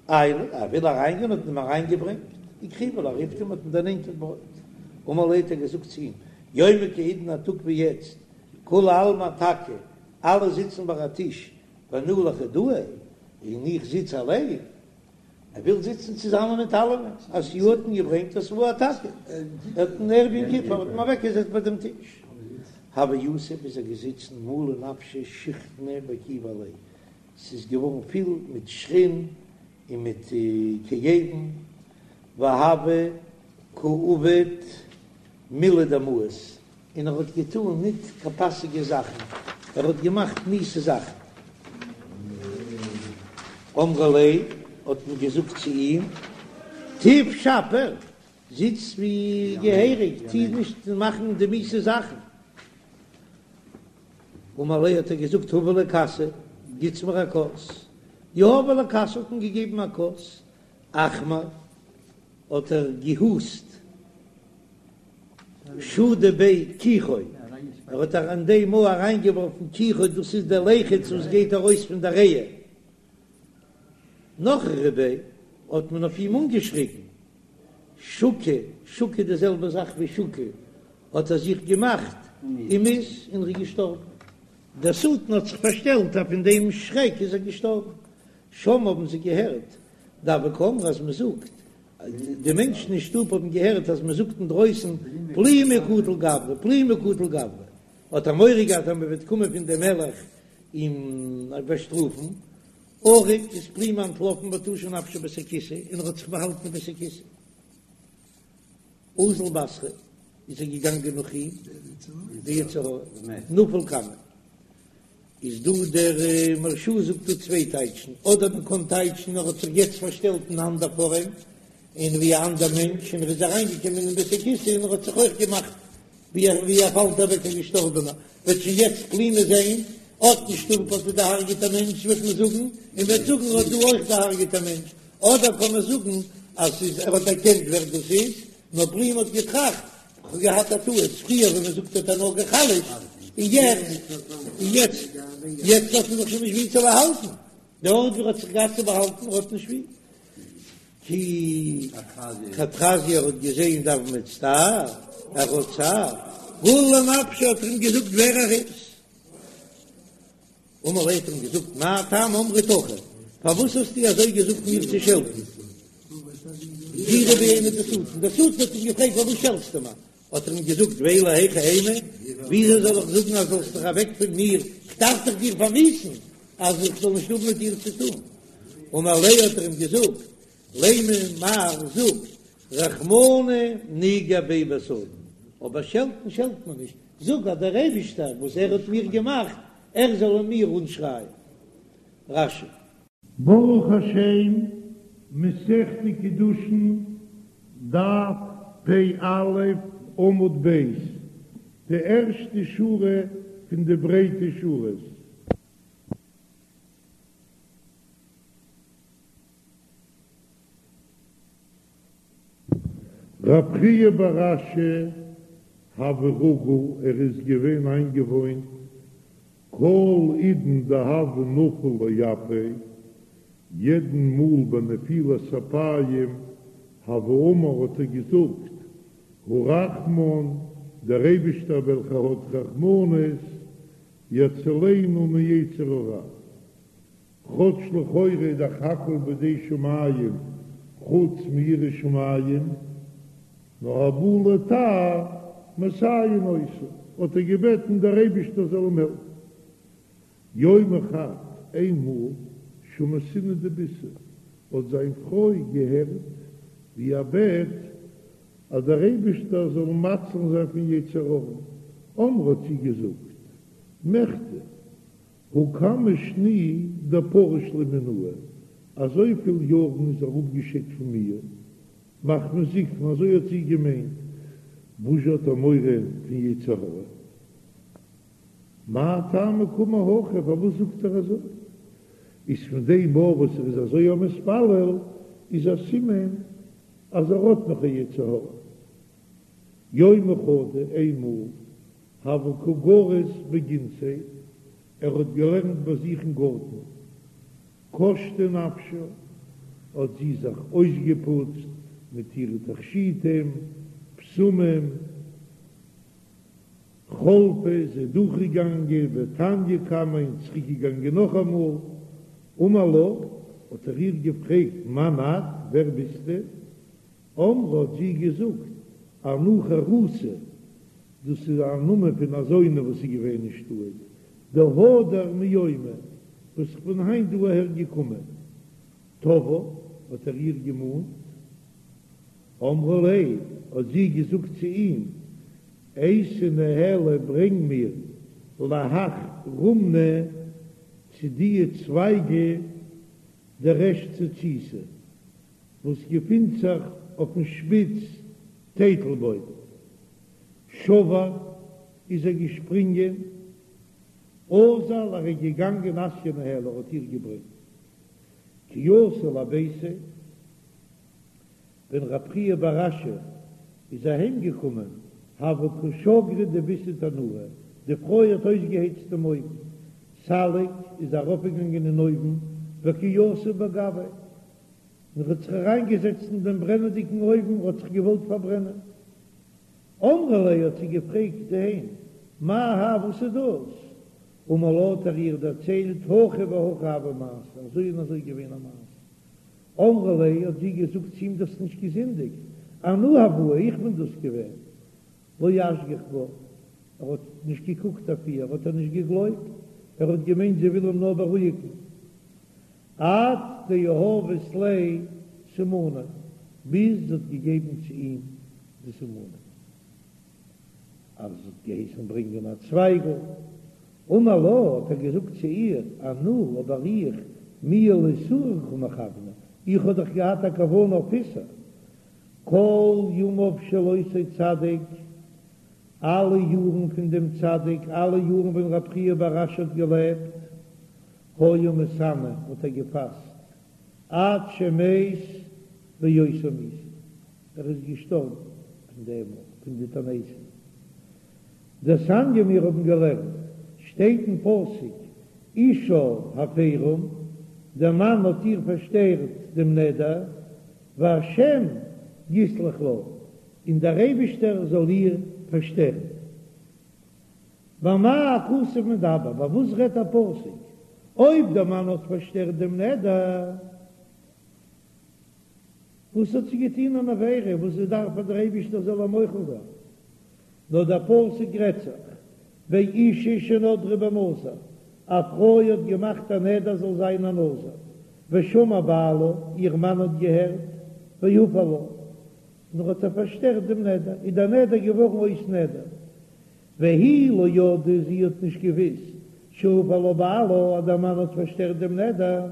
עייל, ער וויל אריינגיין האט מען אים אריינגעברענגט, וקריבו לריפתא האט מען דערנענטערט ברויט. אמר ליה האט ער געזאגט צו אים, יומא כי האידנא א טאג ווי יעצט, כולי עלמא אתכא, אלע זיצן ביי א טיש, ואנא לחודאי, און איך זיץ אליין. ער וויל זיצן צוזאמען מיט אלעמען, אתיוהו האט מען געברענגט אותבוהו אתכא, ער האט אין ערב יום כיפור האט מען אוועקגעזעצט ביי דעם טיש, הוה יתיב איז ער געזיצן מלא נפשיה שיחנא וכיבי עליה, ס'איז געווארן פיל מיט שחין און מיט כאבין, והוה קא עביד מילי דמאיס, און ער האט געטאן ניט קיין פאסיגע זאכן, ער האט געמאכט מיאוסע זאכן. אמרו ליה, האט מען געזאגט צו אים, תיב שפיר, זיץ ווי געהעריג, טו נישט מאכן די מיאוסע זאכן. אמר להו, האט ער געזאגט, הבו לי כסא, גיטס מיר א כוס. יהבו ליה כסא, האט מען געגעבן א כוס. אכמר, האט ער געהוסט. שדי ביה כיחו, ער האט אין דעם מאל אריינגעווארפן כיחו, דאס איז דער ליחות וואס גייט ארויס פון דער ריאה. נחרו ביה, האט מען אויף אים אנגעשריגן, שקי, שקי די זעלבע זאך ווי שקי, האט ער זיך געמאכט ומית און ער איז געשטארבן. דער שטן האט זיך פארשטעלט אז פון דעם שרעק איז ער געשטארבן. שמעו האבן זיי געהערט דהוו קאמרי אז מען זאגט די מענטשן אין שטוב האבן געהערט אז מען זאגט אינדרויסן פלימא קטיל גברא, פלימא קטיל גברא, האט ער מורא געהאט אז מען וועט קומען פון דעם מלך אים באשטראפן, ערק איז פלימא אנטלאפן ותשא נפשיה בית הכסא און ער האט זיך באהאלטן אין בית הכסא. אזל בתריה איז ער געגאנגען נאך אים, די יצר הרע, נפל קמיה. איז דא דער מהרש"א זאגט דא צוויי טייטשן, אדער מען קען טייטשן ער האט זיך יעצט פארשטעלט אין אנדער פארעם און ווי א אנדער מענטש און ער איז אריינגעקומען אין בית הכסא און ער האט זיך אויך געמאכט ווי ער ווי ער פאלט אוועק א געשטארבענער, וועט שוין יעצט פלימא זען אט אין שטוב האט ער דערהרגעט א מענטש וועט מען זאגן און וועט זאגן ער האט דא אויך דערהרגעט א מענטש, אדער קען מען זאגן אז ס'איז ער האט דערקענט ווער דאס איז, נאר פלימא האט געטראכט כ'האב געהאט א טעות, פריער ווען מען זאגט האט ער נאר גע'חלש'ט, און יעצט, און יעצט, יעצט האט מען זיך שוין נישט ווי צו באהאלטן, די ארט ווי ער האט זיך געהאט צו באהאלטן האט נישט ווי. כי כד חזייה ער האט געזען דהוה מצטער, ער האט צער, גלי לנפשיה האט ער אים געזאגט ווער ער איז. אמר ליה האט אים געזאגט מה טעם אמרת הכי, פארוואס האסטו אזוי געזאגט מיר צו שעלטן? גירא בעיניה דשטן, דער שטן האט אים געפרעגט פארוואס שעלטסטו מיר? האט ער אים געזאגט ואלא היכי אימא, וויאזוי זאל איך זאגן אז זאלסט דיך אוועק פון מיר, איך דארף דאך דיר פארמיאוסן אז איך זאל נישט האבן מיט דיר צו טון. אמר ליה האט ער אים געזאגט לימא מר זאג רחמנא ניגר ביה בשטן. אבער שעלטן שעלט מען נישט, זאג אז דער אייבישטער וואס ער האט מיר געמאכט, ער זאל אין מיר אנשרייען. רש"י. ברוך השם, מסכת קידושין, דף פ"א, עמוד ב', די ערשטע שורה פון די ברייטע שורות. רב חייא בר אשי הוה רגיל, ער איז געווען איינגעוואוינט כל עידן דהוה נפיל לאפיה, יעדן מאל ביי נפילת אפיים הוה אמר האט ער געזאגט הרחמן, דער אייבישטער וועלכער האט רחמנות, יצילנו מיצר הרע. כאטש לכאורה איז דאך הכל בידי שמים חוץ מיראת שמים, נאר הבא לטהר מסייעין אותו, האט ער געבעטן דער אייבישטער זאל אים העלפן. יומא חד, איינמאל, שמעתינהו דביתהו, האט זיין פרוי געהערט ווי ער בעט אז דער אייבישטער זאל אים מציל זיין פון יצר הרע, אמרה האט זי געזאגט, מכדי, הא כמה שני דפריש ליה מינאי, אזויפיל יארן איז ער אפגעשיידט פון מיר, מחמת זקנה, אזוי האט זי געמיינט, וואס זשע האט ער מורא פון יצר הרע? מאי טעמא קאמר הכי, פארוואס זאגט ער אזוי? איז פון דעם מאל וואס ער איז אזוי א מתפלל, איז א סימן אז ער האט נאך א יצר הרע. יומא חדא, איינמאל, הוה קא גריס בגינתיה, ער האט געלערנט ביי זיך אין גארטן, קשטה נפשה, האט זי זיך אויסגעפוצט מיט אירע תכשיטים, בשמים, חלפה איז זי דורכגעגאנגען ותניא קמיה און צוריקגעגאנגען נאכאמאל, אמר לה, האט ער איר געפרעגט, מאן את, ווער ביסטו? אמרה האט זי געזאגט, אנא חרותא, דאס איז א נאמען פון א זונה וואס איז געווען אין שטאט, דהדר מיומא, וואס איך בין היינט דא אהער געקומען. תבעה, האט ער איר געמאנט. אמרה ליה, האט זי געזאגט צו אים, אייתי ניהלי ברענג מיר להך רומנא צו דיע צווייגע דריש צוציתא, וואס געפינט זיך אויפן שפיץ טייטלבוים. שבר איז ער געשפרינגען, אזל ער איז געגאנגען אתיא ניהלה ער האט איר געברענגט כי אתא לביתיה, ווען רב חייא בר אשי איז אהיים געקומען הוה קא שגרא דביתהו תנורא, די פרוי האט אויסגעהייצט דעם אויוון, סליק איז ארויפגעגאנגען אין אויוון וקא יתיב בגויה, און האט זיך אריינגעזעצט אין דעם ברענעדיגן אויוון, האט זיך געוואלט פארברענען. אמרה ליה האט זי געפרעגט איהם, מאי האי וואס איז דאס? אמר לה האט ער איר דערציילט, הכי והכי הוה מעשה, אזוי און אזוי געווען א מעשה. אמרה ליה האט זי געזאגט צו אים דו האסט נישט געזינדיגט, אנא הואי איך בין דאס געווען. לא אשגח בה, ער האט נישט געקוקט אויף איר, האט ער נישט געגלויבט, ער האט געמיינט זי וויל אים נאר בארואיגן. עד דיהבת ליה סימני, ביז זי האט געגעבן צו אים די סימנים, אז זי האט געהייסן ברענגען א צווייגל, אמר לה, האט ער געזאגט צו איר, אנא, אבער איך, מיהא לאיסורא קא מכוונא, איך האב דאך געהאט א כוונה אויף איסור, כל ימיו של אותו צדיק, אלע יארן פון דעם צדיק, אלע יארן ווען רב חייא בר אשי האט געלעבט, היה מתענה האט ער געפאסט עד שמת באותה מיתה, ער איז געשטארבן פון דעם פון די תעניתים. דתניא מיר האבן געלערנט, שטייט אין פסוק אישה הפרם, דער מאן האט איר פארשטערט דעם נדר, והשם יסלח לה, און דער אייבישטער זאל איר פארשטערן. במה הכתוב מדבר, ביי וואס רעדט דער פסוק? אויב דער מאן האט פארשטערט דעם נדר, וואס האט זי געטון אן עבירה וואס זי דארף אז דער אייבישטער זאל איר מוחל זיין? נאר דער פסוק רעדט זיך באשה שנדרה בנזיר, א פרוי האט געמאכט א נדר זאל זיין א נזיר, ושמע בעלה, איר מאן האט געהערט, והפר לה. און ער האט איר פארשטערט דעם נדר, איז דער נדר געווארן אויס נדר. והיא לא ידעה, זי האט נישט געוואוסט, שהפר לה בעלה, אז דער מאן האט פארשטערט דעם נדר,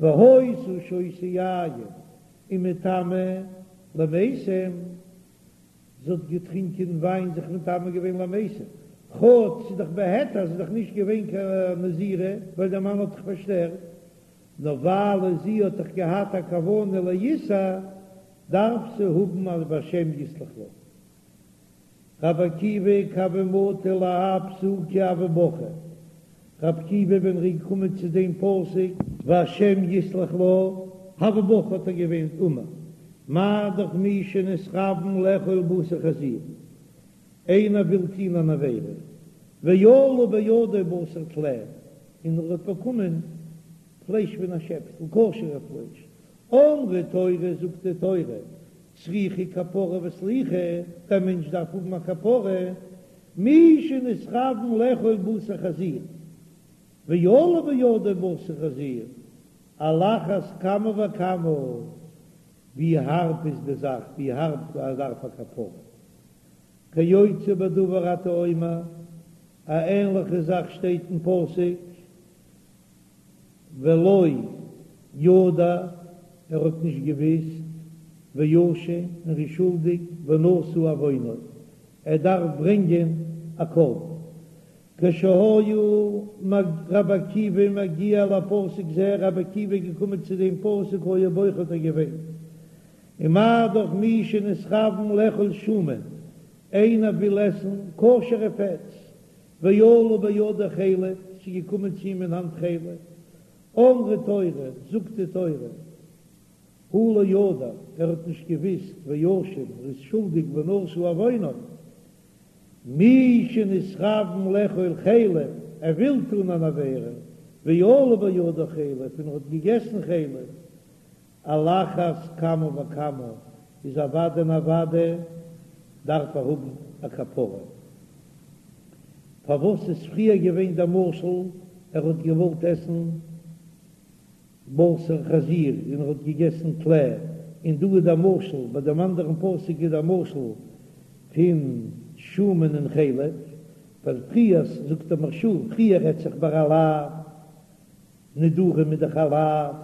והיתה שותה יין ומטמאה למתים, זי האט געטרינקען וויין זיך מטמא געווען למתים, כאטש ס'איז דאך בהיתר, ס'איז דאך נישט געווען קיין נזירה, ווייל דער מאן האט דאך פארשטערט, נאר ווייל זי האט דאך געהאט א כוונה לאיסור, דארף זי האבן א והשם יסלח לה. רבי עקיבא כי הוה מטי להאי פסוקא הוה בכי, רבי עקיבא ווען ער איז געקומען צו דעם פסוק והשם יסלח לה, הוה בכי האט ער געוויינט אמר מה דאך מי שנתכוון לאכול בשר חזיר, איינער וויל טוהן אן עבירה, ועלה בידו בשר טלה, און ער האט באקומען פלייש פון א שעפסל, כשר'ע פלייש, אמרה תורה זאגט די תורה, צריכה כפרה וסליחה, דער מענטש דארף האבן א כפרה, מי שנתכוון לאכול בשר חזיר, ועלה בידו בשר חזיר, על אחת כמה וכמה, ווי הארב איז די זאך, ווי הארב ער דארף א כפרה. כיוצא בדבר אתה אומר, א ענליכע זאך שטייט אין פסוק, ולא ידע, ער האט נישט געוויסט, ואשם, און ער איז שולדיג, ונשא עוונו, ער דארף ברענגען א קרבן. כשהיה רבי עקיבא מגיע לפסוק זה, רבי עקיבא איז געקומען צו דעם פסוק היה בוכה האט ער געוויינט, ומה דאך מי שנתכוון לאכול שומן, איינער וויל עסן כשר'ע פעטס, ועלה בידו חלב, ס'איז געקומען צו אים אין האנט חלב, אמרה תורה, זאגט די תורה, הוא לא ידע, ער האט נישט געוויסט, ואשם, ער איז שולדיג ונשא עוונו, מי שנתכוון לאכול חלב, ער וויל טון אן עבירה, ועלה בידו חלב, און ער האט געגעסן חלב, על אחת כמה וכמה איז אוודאי און אוודאי דארף ער האבן א כפרה. פארוואס איז פריער געווען דער משל ער האט געוואלט עסן בשר חזיר און ער האט געגעסן טלה, און דא איז דער משל, ביי דעם אנדערן פסוק איז דער משל פון שומן און חלב, ווייל פריער זאגט דער מהרש"א פריער רעדט זיך ביי א לאו נדרים איז דאך א לאו,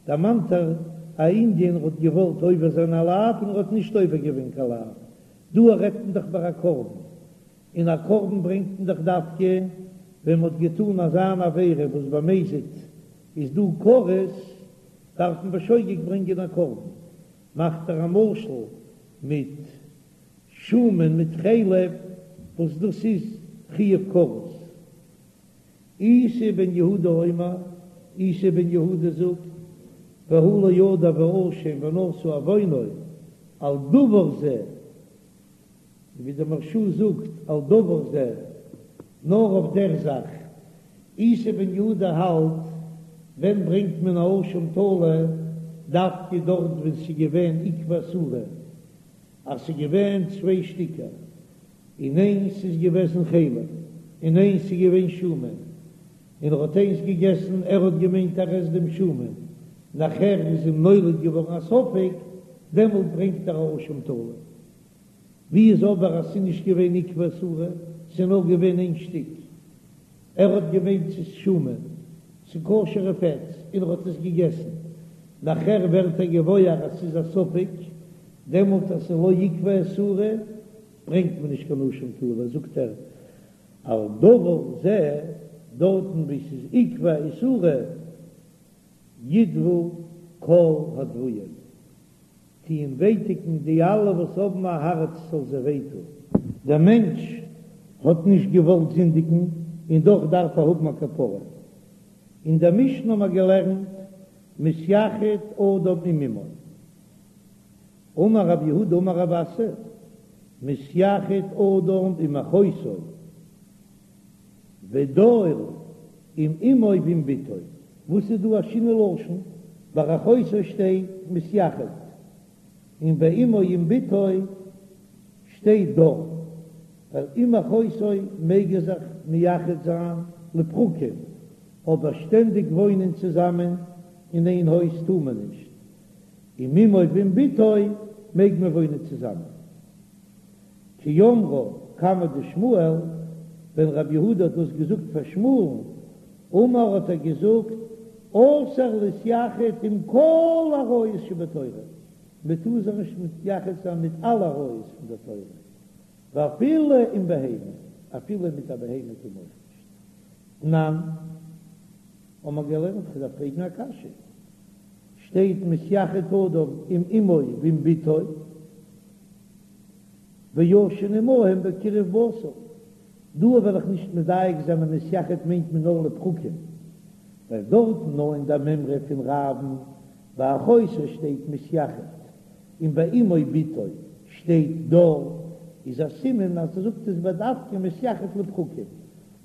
דערמאנט ער א ענין ער האט געוואלט עובר זיין א לאו און ער האט נישט עובר געווען קיין לאו, דא רעדט מען דאך ביי א קרבן, און א קרבן ברענגט מען דאך דווקא ווען מען האט געטאן אזא אן עבירה וואס במזיד איז דא כרת, דארף מען בשוגג ברענגען א קרבן, מאכט ער א משל מיט שומן מיט חלב וואס דאס איז חיוב כרת. איסי בן יהודה אומר, איסי בן יהודה זאגט, והוא לא ידע ואשם ונשא עוונו, על דבר זה, ווי דער מהרש"א זאגט על דבר זה, נאר אויף דער זאך. איסי בן יהודה האלט, ווען ברענגט מען א אשם תלוי, דווקא דארט ווען ס'איז געווען עקבא איסורא, אז ס'איז געווען צוויי שטיקער, און איינס איז געוועזן חלב, און איינס איז געווען שומן, און ער האט איינס געגעסן, ער האט געמיינט ער עסט דעם שומן, נאכער איז אים נולד געווארן א ספק, דעמאלט ברענגט ער א אשם תלוי. ווי איז אבער אז ס'איז נישט געווען עקבא איסורא, ס'איז נאר געווען איין שטיק, ער האט געמיינט ס'איז שומן, ס'איז כשר'ע פעטס, און ער האט עס געגעסן, נאכער ווערט ער געוואויר אז ס'איז א ספק, דעמאלט אז ס'איז לא עקבא איסורא, ברענגט מען נישט קיין אשם תלוי, זאגט ער על דבר זה, דארטן וואו ס'איז עקבא איסורא, ידוו כל הדווים, טוען ווייטיגן די אלע וואס האבן א הארץ זאל זיי וויי טון. דער מענטש האט נישט געוואלט זינדיגן און דאך דארף ער האבן א כפרה. אין דער משנה האבן מיר געלערנט מתייחד אדם עם אמו. אמר רב יהודה אמר רב אסי, מתייחד אדם עם אחותו, ודר עם אמו ועם בתו, וואס איז דא א שינוי לשון? ביי אחותו שטייט מתייחד, און ביי אמו עם בתו שטייט דר, ווייל עם אחותו מעג ער זיך מייחד זיין לפרקים, אבער שטענדיג וואוינען צוזאמען אין איין הויז טאר מען נישט. עם אמו ועם בתו. מעג מען וואוינען צוזאמען. כי אמרה קמיה דשמואל, ווען רב יהודה האט דאס געזאגט פאר שמואל'ן, אמר האט ער געזאגט, אסור להתייחד עם כל עריות שבתורה, מען טאר זיך נישט מתייחד זיין מיט אלע עריות פון דער תורה, ואפילו עם בהמה, אפילו מיט א בהמה טאר מען אויך נישט. תנן, האבן מיר געלערנט, כ'דארף פרעגן א קשיא, שטייט מתייחד אדם עם אמו ועם בתו, וישן עמהם בקירוב בשר, דא וועל איך נישט מדייק זיין אז מתייחד מיינט מען נאר לפרקים, ווייל דארטן נאר אין דער מימרא פון רב'ן ביי אחותו שטייט מתייחד, און ביי אמו בתו שטייט דר, איז א סימן אז ער זאגט עס בדווקא מתייחד לפרקים,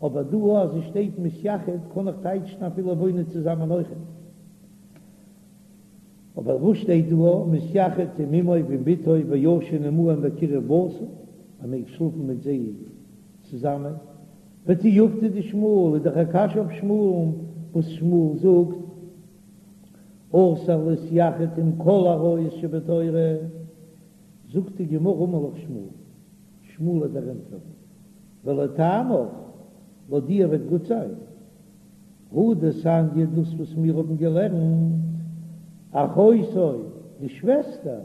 אבער דא אז עס שטייט מתייחד קען איך טייטשן אפילו וואוינען צוזאמען אויכעט. אבער וואס שטייט דא מתייחד עם אמו ועם בתו וישן עמהם בקירוב בשר, מען מעג שלאפן מיט זיי צוזאמען, ותיובתא דשמואל איז דאך א קשיא אויף שמואל'ן וואס שמואל זאגט אסור להתייחד עם כל עריות שבתורה, זאגט די גמרא אמר לך שמואל, שמואל וועט דיר ענטפערן, ולטעמיך, לויט דיר וועט גוט זיין. הא דתניא דאס וואס מיר האבן געלערנט, אחותו, די שוועסטער,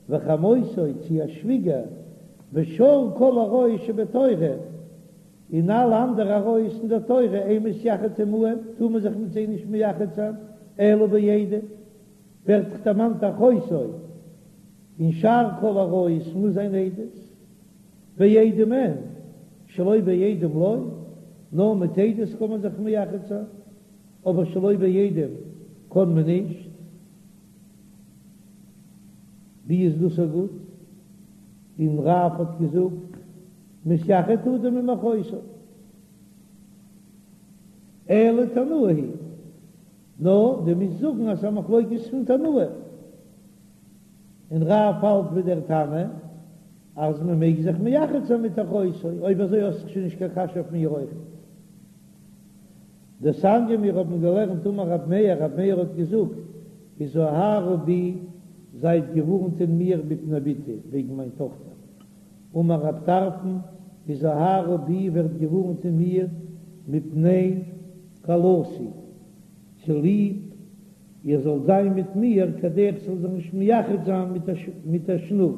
וחמותו, צי א שוויגער, ושאר כל עריות שבתורה, און אלע אנדערע עריות אין דער תורה, אין מתייחד עמהם, טאר מען זיך מיט זיי נישט מייחד זיין, אלא בעדים, ווערט דאך דערמאנט אחותו, און שאר כל עריות מוז זיין עדות. בעדים אין, שלא בעדים לא, נאר מיט עדות קען מען זיך מייחד זיין, אבער שלא בעדים קען מען נישט. ווי איז דאס א גוט? און רב האט געזאגט, מתייחד אדם עם אחותו, אלא תנאי היא, נאר דו מוזט זאגן אז ס'איז א מחלוקת פון תנאים, און רב האלט ווי דער תנא אז מען מעג זיך מייחד זיין מיט אחותו, אויב אזוי האסטו שוין נישט קיין קשיא אויף מיר אויכעט. דתניא מיר האבן געלערנט אמר רב מאיר, רב מאיר האט געזאגט, הזהרו בי, זייט געווארנט אין מיר מפני בתי, וועגן מיין טאכטער. אמר רב טרפון, הזהרו בי, ווערט געווארנט אין מיר מפני כלתי, צוליב איר זאלט זיין מיט מיר, כדי איך זאל זיך נישט מייחד זיין מיט א שנור.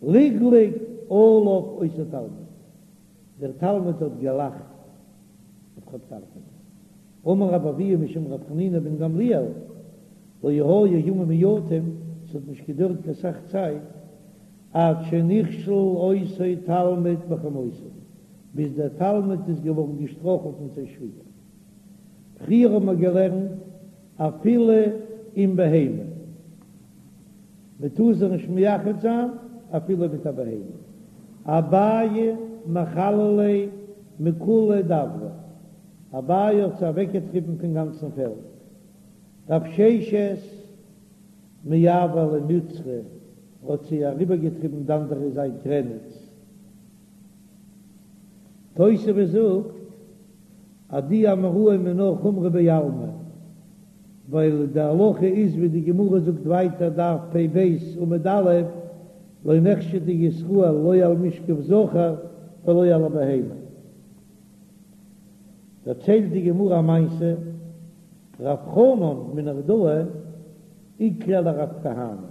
לגלג עליו אותו תלמיד, דער תלמיד האט געלאכט אויף רב טרפון. אמר רבי אבהו משום רבי חנינא בן גמליאל, לא היו ימים מועטים, ס'האט נישט געדויערט קיין סך צייט, עד שנכשל אותו תלמיד בחמותו, ביז דער תלמיד איז געווארן געשטראכלט מיט זיין שוויגער. פריער האט מען געלערנט אפילו עם בהמה, מען טאר זיך נישט מייחד זיין אפילו מיט א בהמה, אביי מכלל ליה מכוליה דברא, אביי האט זיי אוועקגעטריבן פון גאנצן פעלד, רב ששת מעבר ליה מצרא האט זיי אריבערגעטריבן די אנדערע זייט גרעניץ, תוספות זאגט אז די אמוראים איז נאר חומרא בעלמא, ווייל די הלכה איז ווי די גמרא זאגט ווייטער דף פ"ב עמוד א', לא נחשדו ישראל לא על משכב זכר ולא על הבהמה. דערציילט די גמרא א מעשה, רב חנן מנהרדעא איקלע לרב כהנא,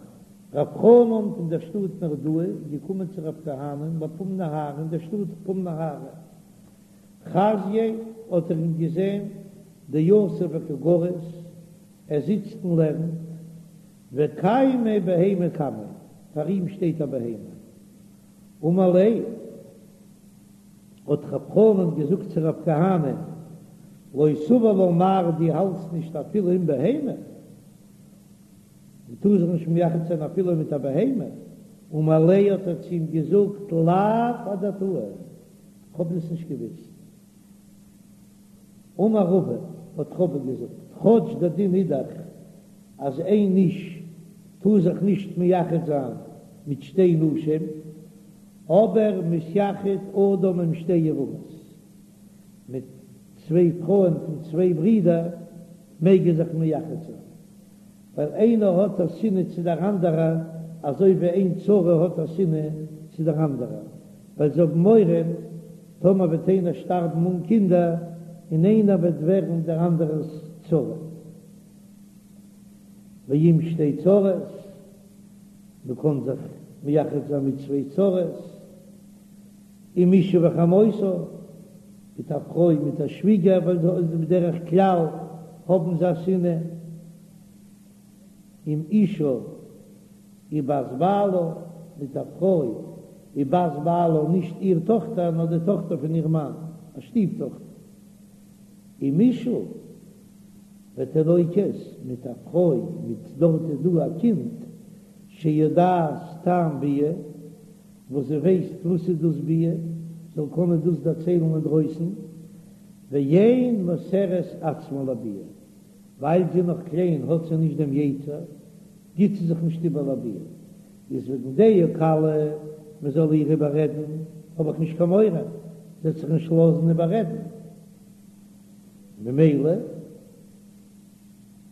רב חנן פון דער שטאט נהרדעא איז געקומען צו רב כהנא בפום נהרא אין דער שטאט פום נהרא, חזייה האט ער אים געזען דיתיב וקא גריס, ער זיצט און לערנט, וקיימא בהמה קמיה, פאר אים שטייט א בהמה. אמר ליה, האט רב חנן געזאגט צו רב כהנא, לא סבר לה מר דו האלטסט נישט אפילו עם בהמה, מען טאר זיך נישט מייחד זיין אפילו מיט א בהמה, אמר ליה האט ער צו אים געזאגט לאו אדעתאי, כ'האב דאס נישט געוואוסט. אמר רבא, האט רבא געזאגט, כאטש דער דין איז דאך אז איין איש טאר זיך נישט מייחד זיין מיט שתי נשים, אבער מתייחד אדם עם שתי יבמות, מיט צוויי פרויען פון צוויי ברידער מעג ער זיך מייחד זיין. ווייל איינער האט א שנאה צו דער אנדערע, אזוי ווי איין צרה האט א שנאה צו דער אנדערע, ווייל זיי האבן מורא טאמער וועט איינער שטארבן אן קינדער, און איינער וועט ווערן דער אנדערער'ס צרה. ועם שתי צרות, מען קען זיך מייחד זיין מיט צוויי צרות, עם אשה וחמותה, מיט א פרוי מיט א שוויגער, ווייל בדרך כלל האבן זיי א שנאה, עם אשה ובת בעלה, מיט א פרוי ובת בעלה, נישט איר טאכטער נאר די טאכטער פון איר מאן, א שטיף טאכטער, עם אשה ותינוקת, מיט א פרוי מיט דארט איז דא א קינד שיודעת טעם ביאה, וואס זי ווייסט וואס איז דאס ביאה, זאל קענען דאס דערציילן אינדרויסן, ואין מוסרת עצמה לביאה, ווייל זי איז נאך קליין האט זי נישט דעם יצר, גיט זי זיך נישט איבער לביאה, איז וועגן דעה קלה מען זאל איר איבעררעדן, האב איך נישט קיין מורא, זי וועט זיך נישט לאזן איבעררעדן, ממילא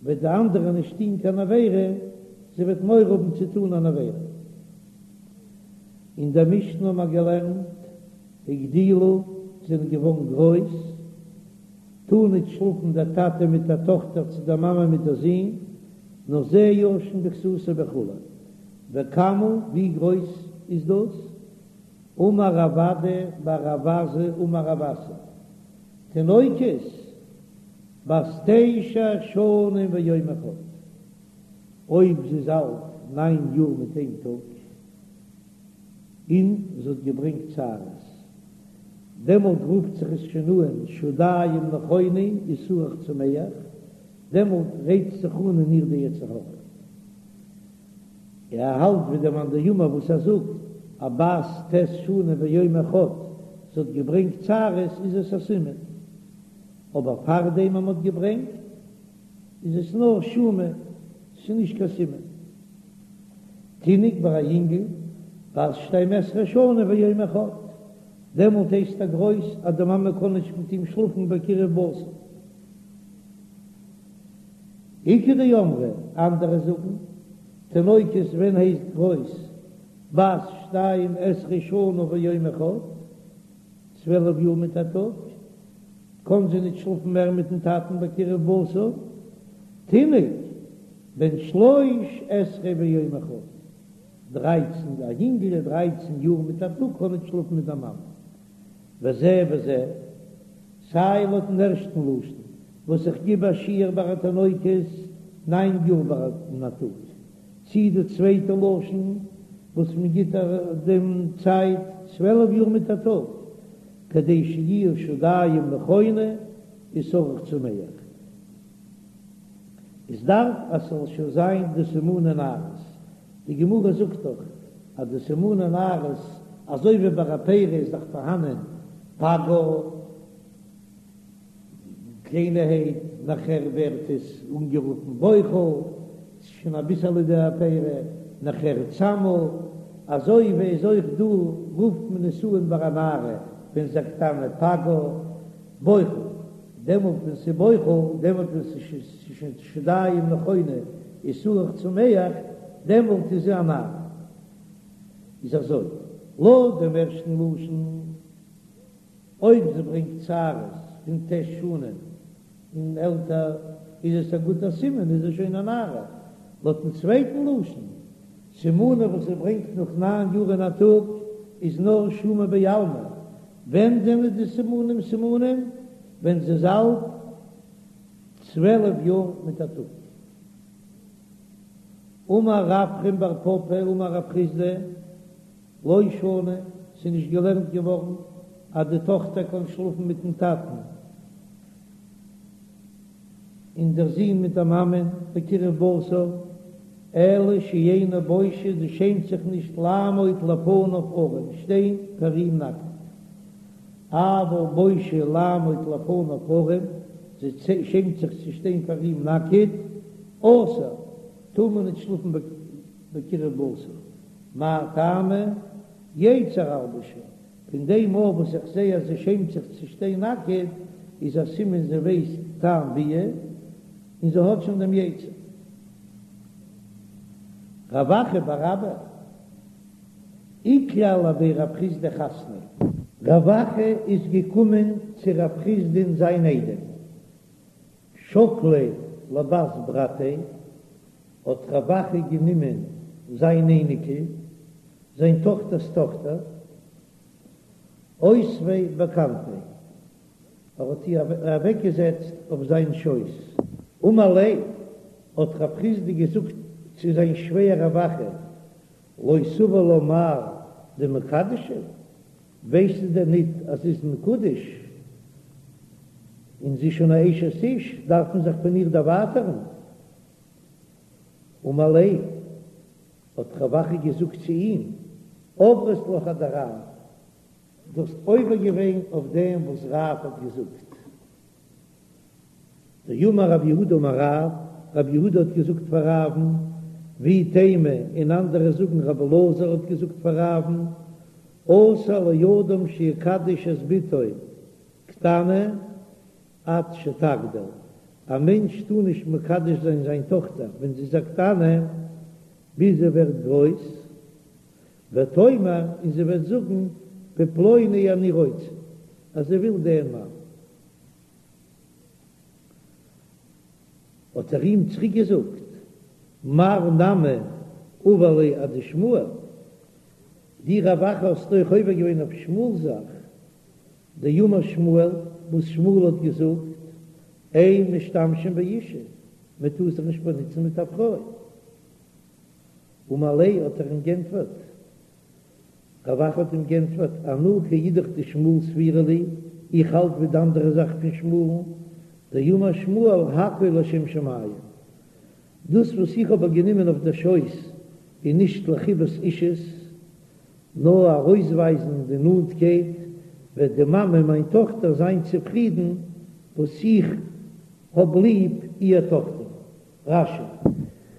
וועט די אנדערע נישט טון קיין עבירה, זי וועט מורא האבן צו טון אן עבירה. אין דער משנה האבן מיר געלערנט, הגדילו, זענען געווארן גרויס, טאר ניט שלאפן דער טאטע מיט דער טאכטער צו דער מאמע מיט דער זון, נאר זה ישן בכסותו וכו'. וכמה, ווי גרויס איז דאס? אמר רב אדא בר רב עזא אמר רב אסי, תינוקת בת תשע שנים ויום אחד, אויב זי איז אלט ניין יאר מיט איין טאג, און זי האט געברענגט שערות, דעמאלט רופט זיך עס שוין אן שדיים נכונו ושערך צמח, דעמאלט רייצט זיך אן אין איר די יצר הרע. ער האלט ווי דער מאן דאמר וואס ער זאגט א בת ט' שנים ויום אחד זי האט געברענגט שערות איז עס א סימן, אבער פארדעם אז מען האט געברענגט איז עס נאר שומא, ס'איז נישט קיין סימן. תינוק ביי א יונגל בת שתים עשרה שנה ויום אחד, דעמאלט הייסט ער גרויס אז די מאמע קען נישט מיט אים שלאפן בקירוב בשר. איכא דאמרי, אנדערע זאגן, תינוקת ווען הייסט גרויס בת שתים עשרה שנה ויום אחד, 12 יאר מיט א טאג, קאן זי ניט שלאפן מער מיטן טאטן בקירוב בשר, תינוק בן שלוש עשרה ויום אחד, דרייצן, א יונגל דרייצן יאר מיט א טאג קאן ניט שלאפן מיט דער מאמע. וזה וזה, סיי לויטן ערשטן לשון וואס איך גיב א שיעור ביי א תינוקת ניין יאר און א טאג, צי די צווייטע לשון וואס מען גיט דעם צייט 12 יאר מיט א טאג, כדי שיהיו שדיים נכונו ושערך צמח. עס דארף אז ס'זאל שוין זיין די סימני נערות, די גמרא זאגט דאך אז די סימני נערות אזוי ווי ביי א פרי איז דאך פארהאנען פגה קליינערהייט, נאכער ווערט עס אנגערופן בוחל, ס'איז שוין אביסעלע די פרי, נאכער צמה, אזוי ווי איז אויך דא רופט מען עס אן ביי א נערה ווען זי איז א קטנה פגה בוחל, דעמאלט ווען ס'איז בוחל, דעמאלט ווען ס'איז שוין שדיים נכונו ושערך צמח, דעמאלט איז זי א נערה. איז אזוי, לויט דעם ערשטן לשון, אויב זי ברענגט שערות פון ט' שנים און עלטער, איז עס א גוטער סימן, איז זי שוין א נערה. לויטן צווייטן לשון, סימנים וואס זי ברענגט נאך ניין יאר און א טאג, איז נאר שומא בעלמא, ווען זענען די סימנים סימנים? ווען זי איז אלט 12 יאר מיט א טאג. אמר רפרם בר פפא אמר רב חסדא, לא שנו, ס'איז נישט געלערנט געווארן אז די טאכטער קען שלאפן מיטן טאטן און דער זון מיט דער מאמען בקירוב בשר, אלא שאינה בושה, זי שעמט זיך נישט לעמוד לפניו ערום, שטיין פאר אים נאקעט. אבל בושה לעמוד לפניו ערום, זי שעמט זיך צו שטיין פאר אים נאקעט, אסור, טאר מען נישט שלאפן בקירוב בשר. מאי טעמא? יצר אלבשה, פון דעם מאל וואס איך זע אז זי שעמט זיך צו שטיין נאקעט, איז א סימן זי ווייסט טעם ביאה, און זי האט שוין דעם יצר. רב אחא בר אבא איקלע לבי רב חסדא חתניה. רב אחא איז געקומען צו רב חסדא'ן זיין איידעם, שקליה לבת ברתיה, האט רב אחא גענומען זיין אייניקל, זיין טאכטער'ס טאכטער, אותביה בכנפיה, ער האט איר אוועקגעזעצט אויף זיין שויס. אמר ליה, האט רב חסדא געזאגט צו זיין שווער רב אחא, לא סבר לה מר דמקדשא, ווייסטו דען ניט אז זי איז מקודש און זי איז שוין א אשת איש, דארף מען זיך פון איר דערווייטערן? אמר ליה, האט רב אחא געזאגט צו אים, עברת לך אדרב, דו האסט עובר געווען אויף דעם וואס רב האט געזאגט. דאמר רב יהודה אמר רב, רב יהודה האט געזאגט פאר רב'ן, ואי תימא, און אנדערע זאגן רב אלעזר האט געזאגט פאר רב'ן, אסור לאדם שיקדש את בתו קטנה עד שתגדיל, א מענטש טאר נישט מקדש זיין זיין טאכטער ווען זי איז א קטנה ביז זי ווערט גרויס, ותאמר, און זי וועט זאגן, בפלוני אני רוצה, אז זי וויל דעם מאן. האט ער אים צוריק געזאגט, מר נמי עבר ליה אדשמואל, דו רב אחא האסט אויך עובר געווען אויף שמואל'ס זאך, דאמר שמואל, וואס שמואל האט געזאגט, אין משתמשים באשה, מען טאר זיך נישט באנוצן מיט א פרוי. אמר ליה האט ער אים גענטפערט, רב אחא האט אים גענטפערט, אנא כאידך דשמואל סבירא לי, איך האלט ווי די אנדערע זאך פון שמואל'ן, דאמר שמואל הכל לשם שמים, דאס וואס איך האב איר גענומען אויף דער שויס איז נישט לחיבת אישות, נאר ארויסווייזן די נאנטקייט, וועט די מאמע מיין טאכטער זיין צופרידן וואס איך האב ליב איר טאכטער. רש"י.